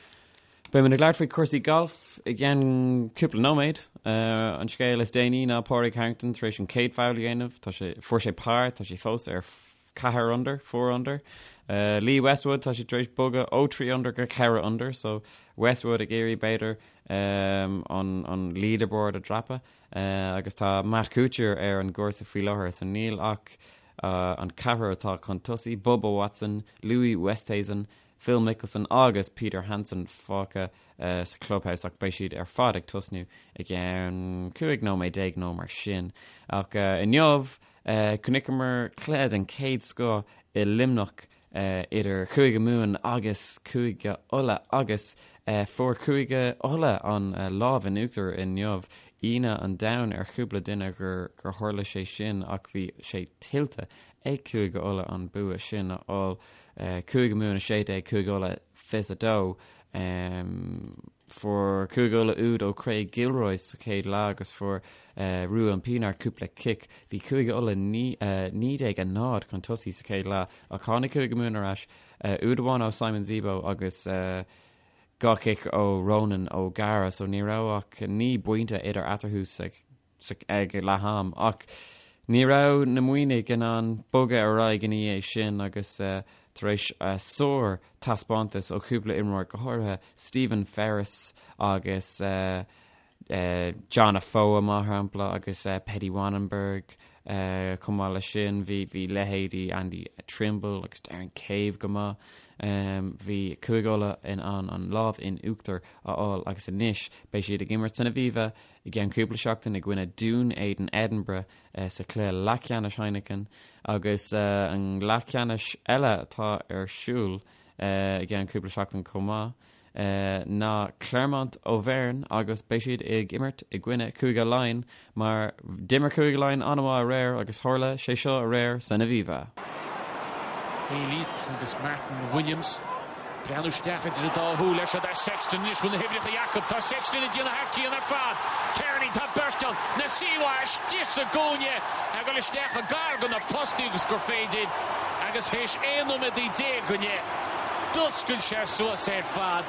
Beimid ag labhairt faoi chúrsaí gailf i gceann cúpla nóiméad. An scéal is déanaí ná Pádraig Harrington tar éis an chéad pholl a dhéanamh. Tá sé, fuair sé par, tá sé fós ar 4 under, 4 under. Lee Westwood, tá sé tar éis bogadh ó 3 under go 4 under, so Westwood ag iarraidh b'fhéidir an, an leaderboard a dhreapadh. Agus tá Matt Kuchar ar an gcúrsa faoi láthair, so níl ach an ceathrar atá chun tosaigh, Bubba Watson, Louis Oosthuizen, Phil Mickelson agus Peter Hanson fágtha sa clubhouse ach beidh siad ar fad ag tosnú i gceann 15 nóiméad nó mar sin. Ach inniu, chonaiceamar cluiche den chéad scoth i Luimneach. idir Chúige Mumhan agus Cúige Uladh agus fuair Cúige Uladh an lámh in uachtar inniu. Ionadh an domhain ar chúpla duine gur tharla sé sin ach bhí sé tuillte ag Cúige Uladh an bua sin a fháil. Cúige Mumhan 16, Cúige Uladh 22. Fuair Cúige Uladh úd ó Craig Gilroy sa chéad leath agus fuair Ruan Pienaar cúpla cic. Bhí Cúige Uladh 19-0 chun tosaigh sa chéad leath ach tháinig Cúige Mumhan ar ais, úd amháin ó Simon Zebo agus 2 chic ó Ronan O'Gara so ní raibh ach 9 bpointe idir eatarthu sa ag leath am ach ní raibh na Muimhnigh in ann bogadh ar aghaidh ina dhiaidh sin agus tar éis sár taispeántas ó chúpla imreoir, go háirithe Stephen Ferris agus John Afoa mar shampla agus Petty Wannenberg chomh maith leis sin bhí bhí leithéidí Andy Trimble agus Darren Cave go maith. Bhí Cúige Uladh in ann an lámh in uachtar a fháil agus anois beidh siad ag imirt san Aviva i gceann cúpla seachtain i gcoinne Dún Éideann Edinburgh sa chluiche leathcheannais Heineken agus an leathcheannais eile atá ar siúl i gceann cúpla seachtain chomh maith ná Clermont Auvergne agus beidh siad ag imirt i gcoinne Cúige Laighean mar d'imir Cúige Laighean an-mhaith aréir agus tharla sé seo aréir san Aviva. Elliott agus Martyn Williams. Breathnú isteach idir an dá shúil air. Seo é Sexton anois. Bhfuil na huimhreacha acu? Tá Sexton ag déanamh thar cionn ar fad. Kearney, tá beirt ann. Nasiwa istigh sa gcúinne. Ag dul isteach chomh gar do na postaí agus gur féidir. Agus théis 11 nóiméad go leith, d'oscail sé suas ar fad.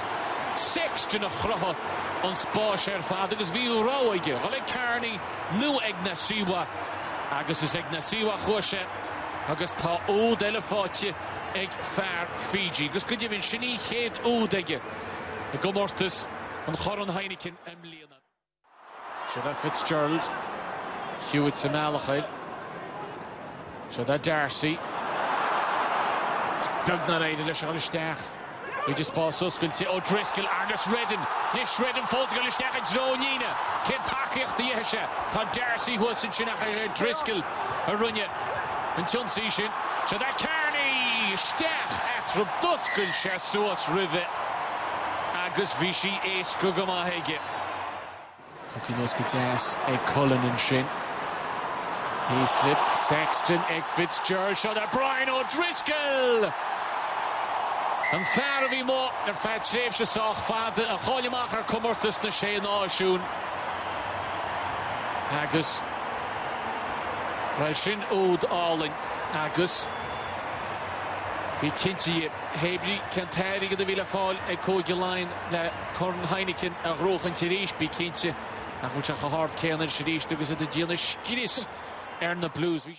Sexton a chruthaigh an spás ar fad agus bhí rogha aige, dhul ag Kearney nó ag Nasiwa. Agus is ag Nasiwa a chuaigh sé. Agus tá úd eile faighte ag fear Fiji. Agus go deimhin, sin í chéad úd aige i gcomórtas an Chorn Heineken i mbliana. Seo é Fitzgerald. Hewitt sa mbealach air. Seo é D'Arcy. Is beag nár éirigh leis a dhul isteach. Bhí spás oscailte O'Driscoll agus Reddan. Anois Reddan fós ag dul isteach i dtreo an líne. Cén tacaíocht a gheobhaidh sé? Tá D'Arcy thuas ansin ach is é O'Driscoll a rinne an t-ionsaí sin. Seo é Kearney! Isteach eatarthu. D'oscail sé suas roimhe agus bhí sí éasca go maith aige. Tugtha anuas go deas ag Cullen ansin. Heaslip, Sexton ag Fitzgerald. Seo é Brian O'Driscoll! An fear a bhí amuigh ar feadh tréimhse sách fada, a chaill amach ar Comórtas na Sé Náisiún. Agus, bhuel, sin úd álainn agus bí cinnte, hé brí cén t-airgead a bhí le fáil ag Cúige Laighean le Corn Heineken a ghnóchaint arís, bí cinnte nach bhfuil sé chomh hard céanna anois arís agus iad ag déanamh scrios ar na Blues. Bhí.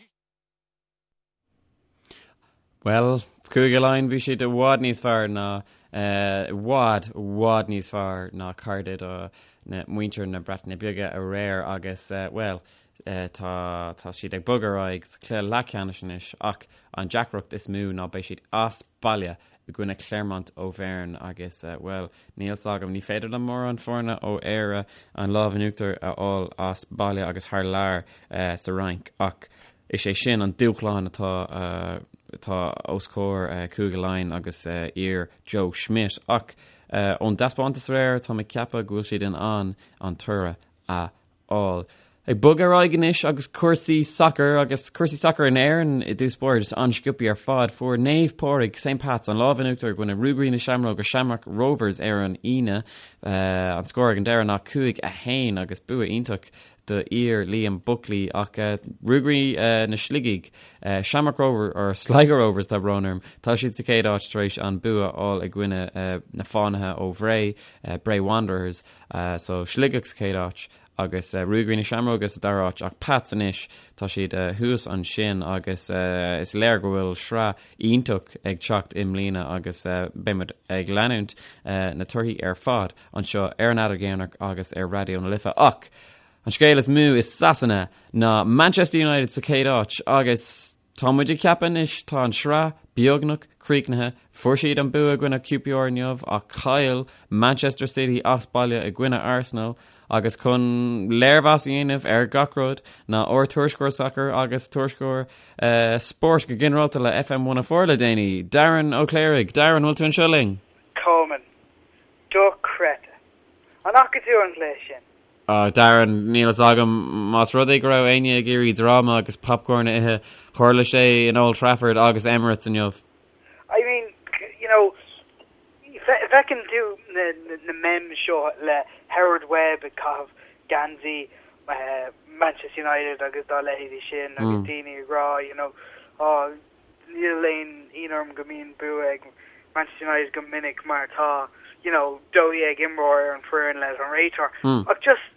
Bhuel, Cúige Laighean, bhí siad i bhfad níos fearr ná, i bhfad, i bhfad níos fearr ná cairde do na muintir na Breataine Bige aréir agus, bhuel, tá, tá siad ag bogadh ar aghaidh sa chluiche leathcheannais anois ach an deacracht is mó ná beidh siad as baile i gcoinne Clermont Auvergne agus, bhuel, níl 's agam, ní féidir le mórán foirne ó Éire an lámh in uachtar a fháil as baile agus thar lear sa Fhrainc ach is é sin an dúshlán atá atá os comhair Cúige Laighean agus fhir Joe Schmidt ach ón dtaispeántas aréir tá mé ag ceapadh go bhfuil siad in ann an toradh a fháil. Ag bogadh ar aghaidh anois agus cúrsaí sacair agus cúrsaí sacair in Éirinn i dtús báire just an-sciobtha ar fad. Fuair Naomh Pádraig, St Pat's, an lámh in uachtar i gcoinne Ruagairí na Seamróige, Shamrock Rovers ar an Aoine. An scór ag an deireadh ná 5-1 agus bua iontach do fhir Liam Buckley ach Ruagairí na Sligigh, Shamrock Rovers, or Sligo Rovers tá brón orm, tá siad sa chéad áit tar éis an bua a fháil i gcoinne na Fánaithe ó Bhré, Bray Wanderers. So Sligeach sa chéad áit agus Ruagairí na Seamróige sa dara háit ach Pats anois tá siad thuas ansin agus is léir go bhfuil sraith iontach ag teacht i mbliana agus beidh muid ag leanúint na torthaí ar fad anseo ar an Fheadóg Dheireanach agus ar Raidió na Life ach an scéal is mó i Sasana ná Manchester United sa chéad áit agus Tá muid ag ceapadh anois, tá an sraith beagnach críochnaithe, fuair siad an bua i gcoinne QPR inniu ach chaill Manchester City as baile i gcoinne Arsenal. Agus chun léirmheas a dhéanamh ar gach rud ná ár tuairisceoir sacair agus tuairisceoir spóirt go ginearálta le FM 104 le déanaí, Darren Ó Cléirigh. Darren, bhfuil tú anseo linn? Colmán. Dochreidte. An bhfaca tú an cluiche sin? Ah, Darren, níl fhios agam más rud é go raibh éinne ag iarraidh dráma agus popcorn a ithe, tharla sé in Old Trafford agus Emirates inniu. I mean, you know, feiceann tú na memes seo le Howard Webb ag caitheamh geansaí Manchester United agus dá leithéidí sin agus daoine ag rá, you know, oh, níl aon ionadh orm go mbíonn bua ag Manchester United go minic mar tá, you know, 12 imreoir ar an foireann leis an réiteoir. Ach just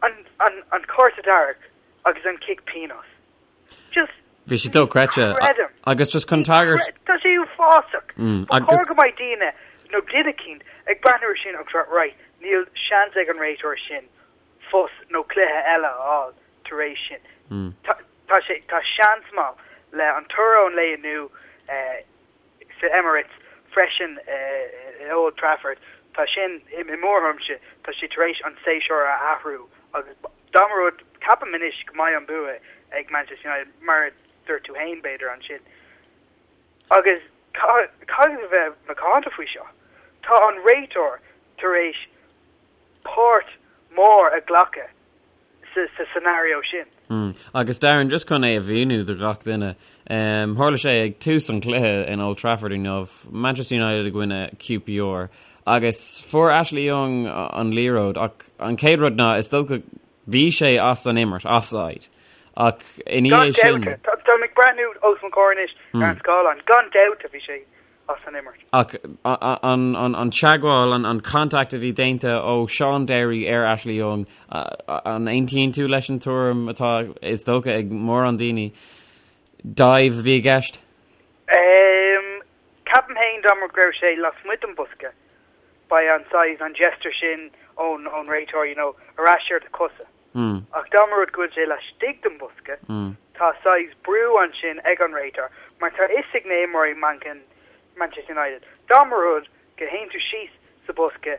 an, an, an cárta dearg agus an cic pionóis. Just Bhí sé dochreidte. Creidim. Agus just chun tagairt. Tá sé uafásach. Ba chóir go mbeidh daoine nó duine eicínt ag breathnú ar sin agus rá, right, níl seans ag an réiteoir sin post nó cluiche eile a fháil tar éis sin. Tá sé, tá seans maith le an toradh ón lae inniu sa Emirates freisin i Old Trafford, tá sin, i mo thuairimse, tá sé tar éis an séasúr a athrú agus dá mba rud, ceapaim anois go mbeidh an bua ag Manchester United mar a dúirt tú féin b'fhéidir ansin. Agus caithfidh a bheith macánta faoi seo. Tá an réiteoir tar éis páirt mhór a ghlacadh sa scenario sin. Mm. Agus Darren, just chun é a mhíniú do gach duine, um, tharla sé ag tús an chluiche in Old Trafford inniu, Manchester United i gcoinne QPR, agus fuair Ashley Young an liathróid, ach an chéad rud ná is dócha bhí sé as an imirt, offside. Ach ina dhiaidh sin... Gan dabht, tá mé ag breathnú os mo chomhair anois ar an scáileán, gan dabht bhí sé as an imirt. Ach an teagmháil, an contact a bhí déanta ó Shaun Derry ar Ashley Young, an aontaíonn tú leis an tuairim atá, is dócha, ag mórán daoine, dive a bhí i gceist? Ceapaim féin dá mba go raibh sé lasmuigh den bosca, beidh an saghas, an gesture sin ón réiteoir, you know, ar ais ar do chosa. Ach dá mba rud go bhfuil sé laistigh den bhosca, tá saghas brú ansin ag an réiteoir, mar tá fhios ag na imreoirí Manchester United, dá mba rud go théann tú síos sa bosca,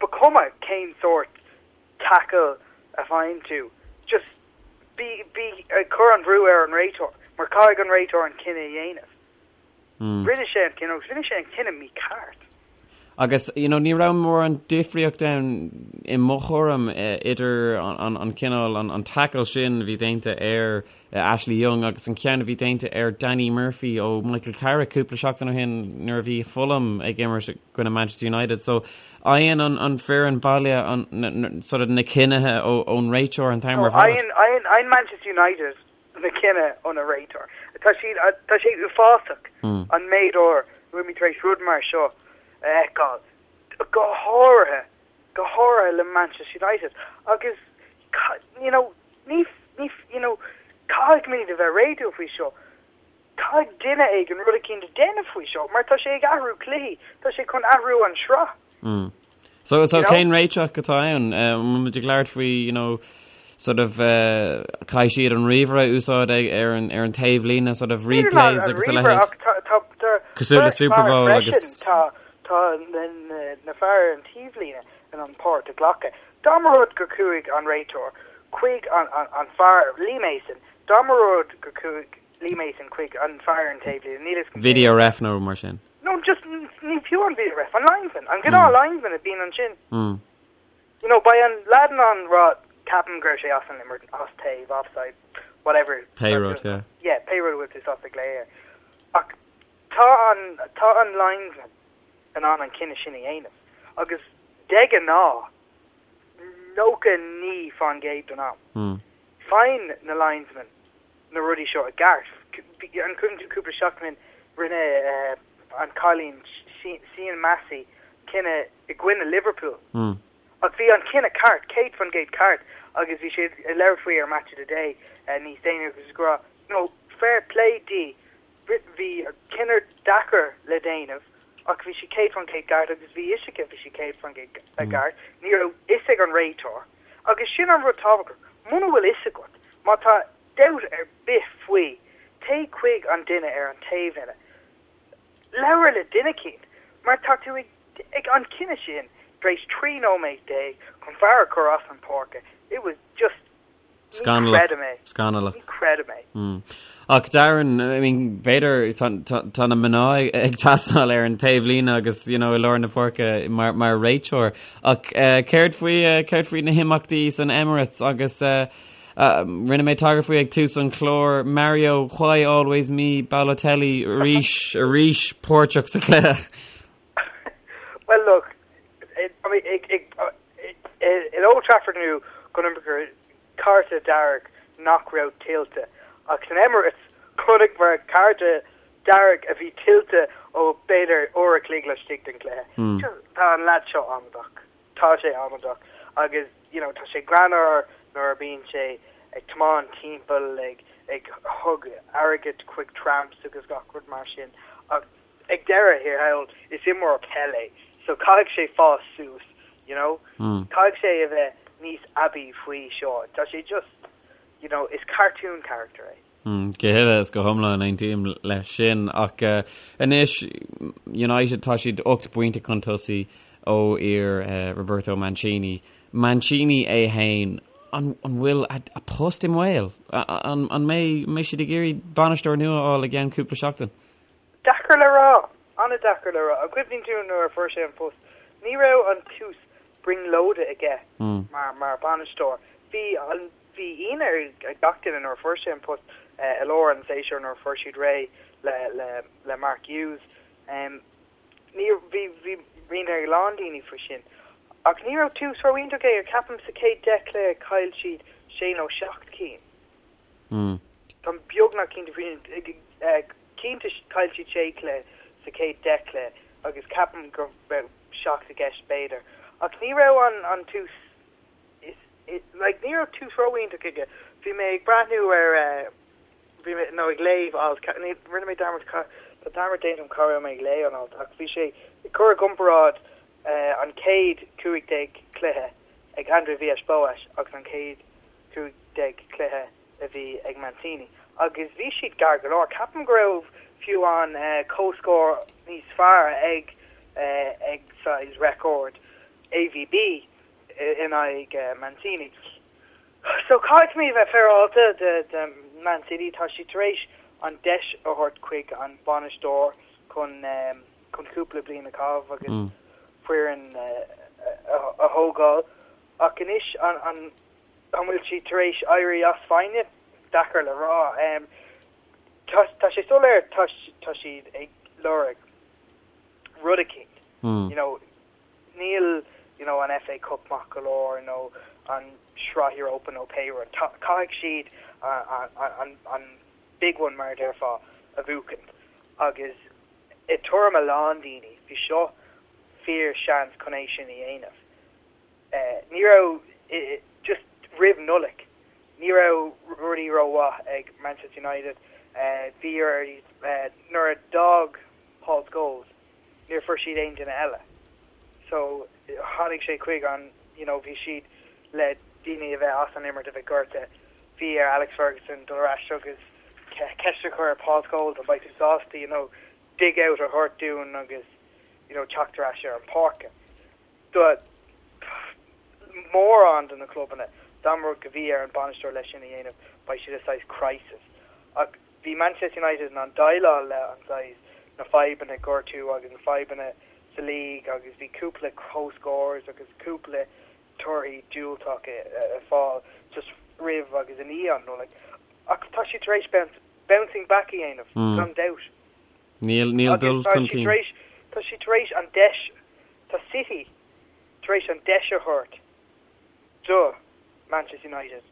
ba chuma cén sórt tackle a bhfaigheann tú, just bí bí ag cur an bhrú ar an réiteoir, mar caithfidh an réiteoir an cinneadh a dhéanamh. Rinne sé an cinneadh agus rinne sé an cinneadh mícheart. Agus, you know, ní raibh mórán difríocht ann i mo thuairim idir an cineál, an tackle sin a bhí déanta ar Ashley Young agus an ceann a bhí déanta ar Danny Murphy ó Michael Carrick cúpla seachtain ó shin nuair a bhí Fulham ag imirt i gcoinne Manchester United. So, faigheann an foireann baile an, sort of na cinnithe ón réiteoir an t-am ar fad. Faigheann Manchester United na cinneadh ón réiteoir. Tá siad, tá sé uafásach an méid uair a bhfuil mé tar éis rud mar seo a fheiceáil, go háirithe, go háirithe le Manchester United agus you know, ní, ní, you know, caithfidh muid a bheith réadúil faoi seo. Caithfidh duine éigin rud eicínt a déanamh faoi seo mar tá sé ag athrú cluichí, tá sé chun athrú an sraith. Mm. So, so cén réiteach atá ann? An bhfuil muid ag labhairt faoi, you know, sort of uh, caithfidh siad an ríomhaire a úsáid ag, ar an, ar an taobhlíne, sort of replays agus a leithéid. Cosúil le Super Bowl agus... Tá tá na, na, na fear ar an taobhlíne in ann páirt a ghlacadh. Dá mba rud gur chuaigh an réiteoir chuig an, an, an fear Lee Mason, dá mba rud gur chuaigh Lee Mason chuig an fear ar an taobhlíne, níl fhios Video ref nó mar sin. No, just ní fiú an video ref, an linesman, an gnáth linesman a bhíonn ansin. You know, beidh an lad in ann rá, ceapaim go raibh sé as an imirt, as taobh, offside, whatever. Pé rud, yeah. Yeah, pé rud a bhfuil tú sásta glaoch air. Ach tá an, tá an linesman in ann an cinneadh sin a dhéanamh. Agus de ghnáth, 99% den am, faigheann na linesmen na rudaí seo i gceart. An cuimhin tú cúpla seachtain rinne an cailín Sian Massey cinneadh i gcoinne Liverpool. Ach bhí an cinneadh ceart, 100% ceart agus bhí siad ag labhairt faoi ar Match of the Day níos déanaí agus ag rá, you know, fair play di, bhí cinneadh deacair le déanamh ach bhí sí 100% ceart agus bhí fhios aici bhí sí 100% ceart. Ní raibh fhios ag an réiteoir Agus sin an rud tábhachtach, muna bhfuil fhios agat, má tá dabht ar bith faoi, téigh chuig an duine ar an taobhlíne. Labhair le duine eicínt, mar tá tú ag, ag an cinneadh sin. Tar éis 13 nóiméad chun fear a chur as an páirce, it was just, ní Scannalach. chreidim é. Scannalach. Ní chreidim é. Ach Darren, I mean, b'fhéidir tá na mná ag teastáil ar an taobhlíne agus you know, i lár na páirce mar, mar réiteoir. Ach uh, céard faoi uh, céard faoi na himeachtaí san Emirates agus uh, uh, rinne mé tagairt faoi ag tús an chláir Mario Why Always Me Balotelli arís arís páirteach sa chluiche. Well look, I mean, ag, ag, in Old Trafford inniu chonaiceamar cárta dearg nach raibh tuillte ach san Emirates chonaiceamar cárta dearg a bhí tuillte ó b'fhéidir uair a chloig laistigh den chluiche. Just tá an leaid seo amadach. Tá sé amadach agus you know tá sé greannmhar nuair a bíonn sé ag tiomáint timpeall ag ag thug airgead chuig tramps agus gach rud mar sin ach ag deireadh thiar thall is imreoir peile é so caithfidh sé fás suas you know caithfidh sé a bheith níos aibí faoi seo tá sé just you know is cartoon character é. Go huile is go hiomlán aontaím leis sin ach anois United tá siad 8 bpointe chun tosaigh ó fhir Roberto Mancini. Mancini é fhéin an bhfuil a post i mbaol? An mbeidh siad ag iarraidh bainisteoir nua a fháil i gceann cúpla seachtain? Deacair le rá. An-deacair le rá. An gcuimhníonn tú nuair a fuair sé an post, ní raibh an tús brionglóide aige mar mar bhainisteoir. Bhí an bhí ionadh ar gach duine nuair a fuair sé an post i lár an tséasúir nuair a fuair siad réidh le le le Mark Hughes. Ní bhí bhí ionadh ar a lán daoine faoi sin. Ach ní raibh tús ró-iontach aige. Ceapaim sa chéad 10 cluiche chaill siad sé nó seacht cinn. Táim beagnach cinnte faoi sin. Cinnte, chaill siad sé chluiche sa chéad 10 cluiche agus ceapaim go raibh seacht i gceist b'fhéidir. Ach ní raibh an an tús is like ní raibh tús ró-iontach aige. Bhí mé ag breathnú ar bhí mé nó ag léamh alt ní rinne mé dearmad tá dearmad déanta agam cá raibh mé ag léamh an alt ach bhí sé ag cur i gcomparáid an chéad 15 cluiche ag André Villas-Boas agus an chéad 15 cluiche a bhí ag Mancini agus bhí siad gar go leor. Ceapaim go raibh fiú an comhscór níos fearr ag ag saghas record AVB in aghaidh Mancini. So caithfidh mé a bheith féaráilte de de Man City, tá siad tar éis an deis a thabhairt chuig an bainisteoir chun chun cúpla bliain a chaitheamh agus foireann a thógáil ach anois an an An bhfuil siad tar éis éirí as foighne? Deacair le rá. Tá sé soiléir tá siad ag lorg rud eicínt. You know, níl you know, an FA Cup maith go leor nó an Sraith Europa nó pé rud. Caithfidh siad an, an big one mar a déarfá a bhuachaint. Agus i dtuairim a lán daoine, bhí seo fíor seans chun é sin a dhéanamh. Ní raibh, just roimh Nollaig, ní raibh rudaí rómhaith ag Manchester United. Bhí ar, nuair a d'fhág Paul Scholes, níor fuair siad aon duine eile. So tháinig sé chuig an, you know, bhí siad le daoine a bheith as an imirt, a bheith gortaithe. Bhí ar Alex Ferguson dul ar ais agus ceist a chur ar Paul Scholes an mbeidh tú sásta, you know, dig out a thabhairt dúinn agus, you know, teacht ar ais ar an pháirc. Do mórán de na clubanna, dá mba rud go bhí ar an bainisteoir leis sin a dhéanamh, beidh siad i saghas crisis. Ach bhí Manchester United in ann déileáil le an saghas, na fadhbanna gortú agus na fadhbanna sa league agus bhí cúpla comhscores agus cúpla torthaí diúltach ag fáil just roimh agus i ndiaidh an Nollaig. Ach tá siad tar éis bounce, bouncing back a dhéanamh, gan dabht. Níl, níl dul chun cinn. Tá siad tar éis an deis, tá City tar éis an deis a thabhairt do Manchester United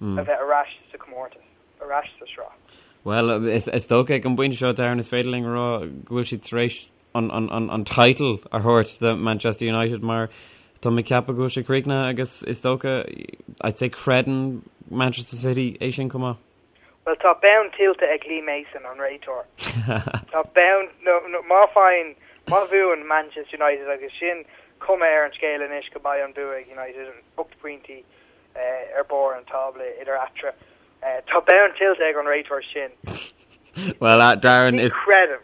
a bheith ar ais sa chomórtas, ar ais sa sraith. Bhuel, is dócha ag an bpointe seo, Darren, is féidir linn a rá go bhfuil siad tar éis an, an, an, an title a thabhairt do Manchester United mar tá mé ag ceapadh go bhfuil sé críochnaithe agus is dócha, I'd say creideann Manchester City é sin chomh maith. Bhuel, tá bonn tuillte ag Lee Mason, an réiteoir. Tá bonn, nó, nó, má faigheann, má bhuann Manchester United agus sin cuma ar an scéal anois go mbeidh an bua ag United, 8 bpointí ar barr an tábla idir eatarthu. Tá bonn tuillte ag an réiteoir sin. Well, uh, Darren is... Ní chreidim.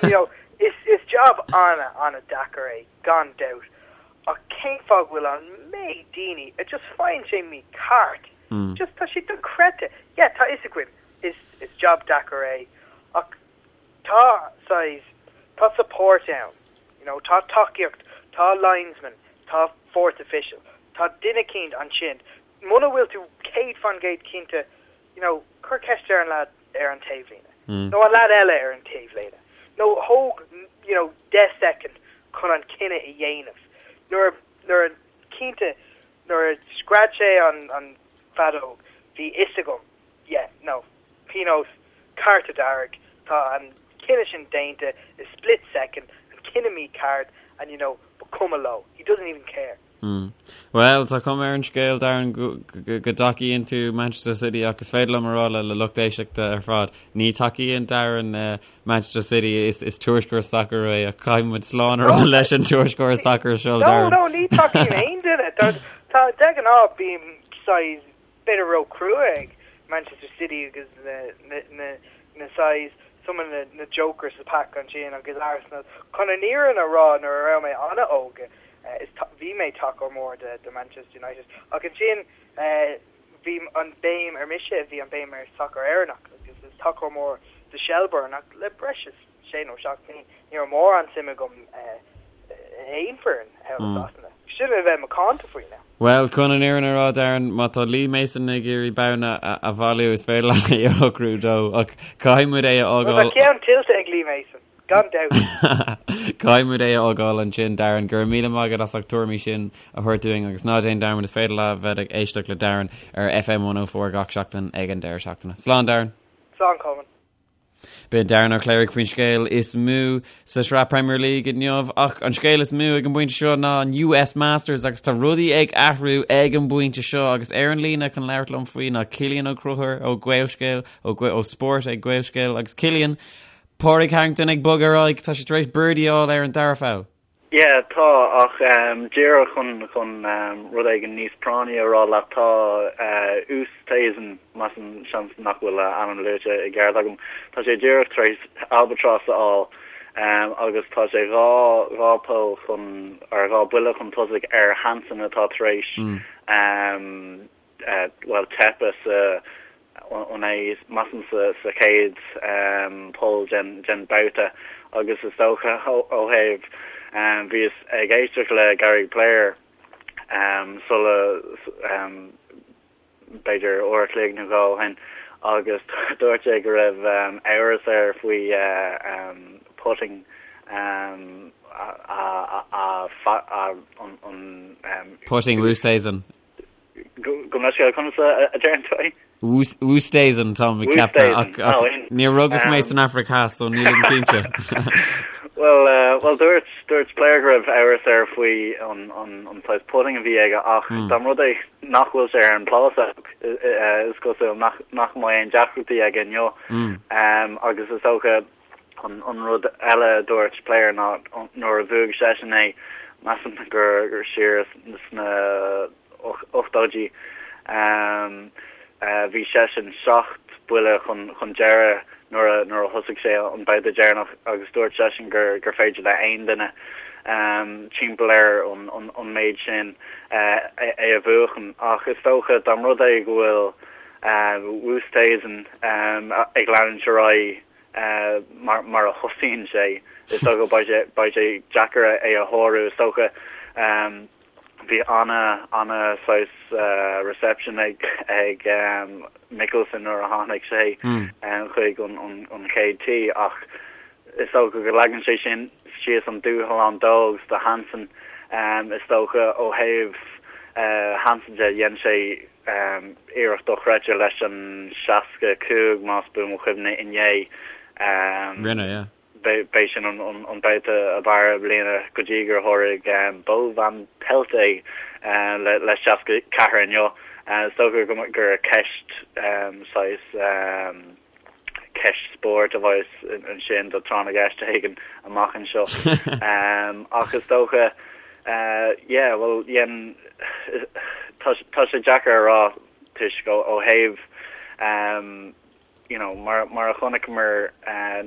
You know, is, is job ana, ana deacair é, gan dabht. Ach cén fáth go bhfuil an méid daoine a just faigheann sé mícheart? Just tá sé dochreidte. Yeah, tá fhios againn, is is job deacair é ach tá saghas, tá support ann, you know, tá tacaíocht, tá linesman, tá fourth official, tá duine eicínt ansin. Muna bhfuil tú 100% cinnte, you know, cuir ceist ar an lad ar an taobhlíne, nó an lad eile ar an taobhlíne, nó thóg, you know, 10 soicind chun an cinneadh a dhéanamh. Nuair, nuair a, cinnte, nuair a scread sé an, an feadóg, bhí fhios agam, yeah, no, pionós, cárta dearg, tá an cinneadh sin déanta i split second, an cinneadh mícheart, and you know, ba cuma leo, he doesn't even care. Mm. Bhuel, tá cuma ar an scéal, Darren, go dtacaíonn tú Manchester City ach is féidir liom a rá le le lucht éisteachta ar fad, ní tacaíonn Darren eh, Manchester City, is, is tuairisceoir sacair é ach caithfidh muid slán a rá leis an tuairisceoir sacair seo, Darren. No, no, ní tacaím aon duine. Tá, tá, de ghnáth bím saghas b'fhéidir ró-chrua ag Manchester City agus na, na, na, na saghas some of na, na jokers sa pack ansin agus Arsenal. Chun an fhírinne a rá nuair a raibh mé an-óg, is bhí mé tacóir mór de Manchester United ach ansin bhí an béim ar mise, bhí an béim ar sacar Éireannach agus is tacóir mór de Shelbourne ach le breis is sé nó seacht mbliain ní raibh mórán suim agam i aon foireann thall i Sasana. Sin a bheith macánta faoi now. Bhuel, chun an fhírinne a rá, Darren, má tá Lee Mason ag iarraidh babhna a bhailiú is féidir leat é a shocrú dó ach caithfidh muid é a fhágáil. Tá ceann tuillte ag Lee Mason. Gan dabht. Caithfidh muid é a fhágáil ansin, Darren. Go raibh míle maith agat as ucht tuairimí sin a thabhairt dúinn agus ná déan dearmad is féidir leat bheith ag éisteacht le Darren ar FM 104 gach seachtain ag an deireadh seachtaine. Slán, Darren. Slán, Colmán. B'in Darren Ó Cléirigh faoin scéal is mó sa sraith Premier League inniu ach an scéal is mó ag an bpointe seo ná an US Masters agus tá rudaí ag athrú ag an bpointe seo agus ar an líne chun labhairt liom faoi ná Cillian Ó Conchúir ó Gaelscéal ó, ó Spórt ag Gaelscéal agus Cillian Pádraig Harrington ag bogadh ar aghaidh, tá sé tar éis birdie a fháil ar an dara poll. Yeah, tá, ach díreach chun chun rud éigin níos práinní a rá leat, tá Oosthuizen, measaim, seans nach bhfuil a ainm luaite i gceart agam, tá sé díreach tar éis albatross a fháil agus tá sé dhá dhá poll chun, or dhá buille chun tosaigh ar Hansen atá tar éis bhuel, teipeadh sa, an é, measaim sa chéad poll den babhta agus is dócha ó thaobh, bhíos ag éisteacht le Gary Player sula, b'fhéidir uair a chloig nó dhó ó shin agus dúirt sé go raibh amhras air faoi putting an. Putting Oosthuizen. Gabh mo leithscéal, conas a deireann tú é? Oosthuizen tá mé ag ceapadh ach níor rugadh mé san Afraic Theas so nílim cinnte. Bhuel, bhuel dúirt, dúirt Player go raibh amhras air faoi an, an, an saghas putting a bhí aige ach dá mba rud é nach bhfuil sé ar an bplásóg is cosúil nach, nach mbeidh aon deacrachtaí aige inniu. Agus is dócha An rud eile a dúirt Player ná nuair a bhuaigh seisean é, measaim gur siar sna ochtóidí, bhí seisean seacht buille chun deireadh nuair a thosaigh sé an babhta deireanach agus dúirt seisean gur féidir le aon duine timpeall ar an méid sin é a bhuachan. Ach is dócha dá mba rud é go bhfuil Oosthuizen ag leanúint ar aghaidh mar a thosaíonn sé, is dócha beidh sé beidh sé deacair é a shárú. Is dócha bhí ana ana saghas reception ag ag Mickelson nuair a tháinig sé chuig an an chéad tee ach is dócha go leagann sé sin síos an dúshlán dó agus do Hansen. Is dócha ó thaobh Hansen de dhein sé Iarracht dochreidte leis an 65, más buan mo chuimhne, inné. Rinne, yeah. B'é sin an babhta ab fhearr i mbliana go dtí gur sháraigh Bo Van Pelt é le 64 inniu. Is dócha gur ceist saghas ceist spóirt a bheas ansin do tráth na gceist éigin amach anseo. Ach is dócha, yeah, bhuel, dhein, tá tá sé deacair a rá toisc ó ó thaobh you know, mar mar a chonaiceamar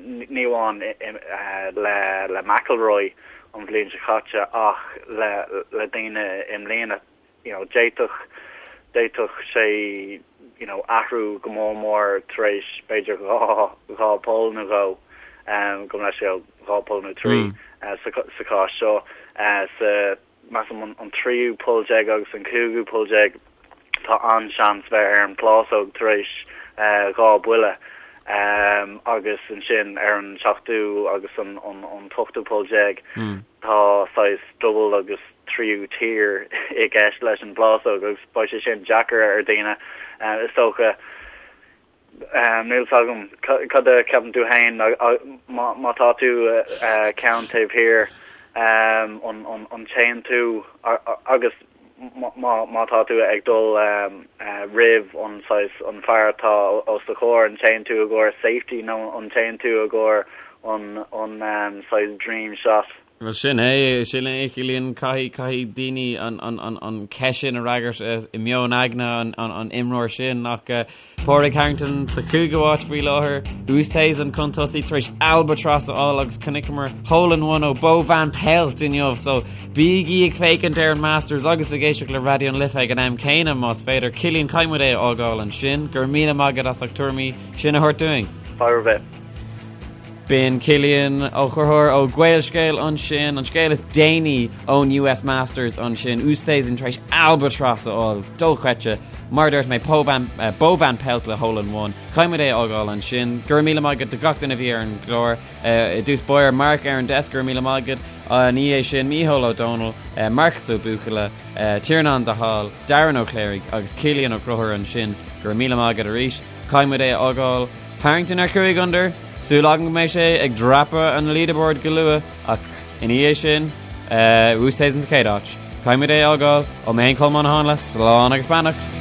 ní amháin le le McIlroy. an bhliain seo caite ach le le daoine i mbliana you know d'fhéadfadh d'fhéadfadh sé you know athrú go mór mór tar éis b'fhéidir 2 2 poll nó dhó gabh mo leithscéal 2 poll nó 3 sa sa chás seo sa measaim an tríú poll déag agus an cúigiú poll déag, tá an-seans bheith ar an phlásóg tar éis 2 buille agus ansin ar an seachtú agus an t-ochtú poll déag tá saghas dubhal agus tríú tír i gceist leis an bplásóg agus beidh sé sin deacair ar daoine is dócha. Níl 's agam cad a cheapann tú féin má tá tú ceann taobh thiar an téann tú agus má tá tú ag dul roimh an saghas an fear atá os do chomhair an téann tú i gcomhair safety nó an téann tú i gcomhair an saghas dream shot? Bhuel, sin é, sin é, Cillian, caithfidh, caithfidh daoine an, an, an, an cheist sin a fhreagairt i meon aigne an, an, an imreoir sin ach Pádraig Harrington sa chúigiú háit faoi láthair, Oosthuizen chun tosaigh tar éis albatross a fháil agus chonaiceamar hole in one ó Bo Van Pelt inniu, so bígí ag féachaint ar an Masters agus ag éisteacht le Raidió na Life ag an am céanna más féidir. Cillian, caithfidh muid é a fhágáil ansin. Go raibh míle maith agat as ucht tuairimí sin a thabhairt dúinn. Fadhb ar bith. B'in Cillian Ó Conchúir ó Gaelscéal ansin, an scéal is déanaí ón US Masters ansin, Oosthuizen tar éis albatross a fháil, dochreidte, mar a dúirt mé, Bo Van, Bo Van Pelt le hole in one. Caithfidh muid é a fhágáil ansin. Go raibh míle maith agat do gach duine a bhí ar an gclár. I dtús báire, Mark ar an desk, go raibh míle maith agat. Ina dhiaidh sin, Mícheál Ó Dónaill, Marcas Ó Buachalla, Tiarnán de Hál, Darren Ó Cléirigh agus Cillian Ó Conchúir ansin. Go raibh míle maith agat arís. Caithfidh muid é a fhágáil. Harrington ar 5 under, súil agam go mbeidh sé ag dreapadh an leaderboard go luath ach ina dhiaidh sin, Oosthuizen sa chéad áit. Caithfidh muid é a fhágáil, ó mé féin Colmán Ó Háinle, slán agus beannacht!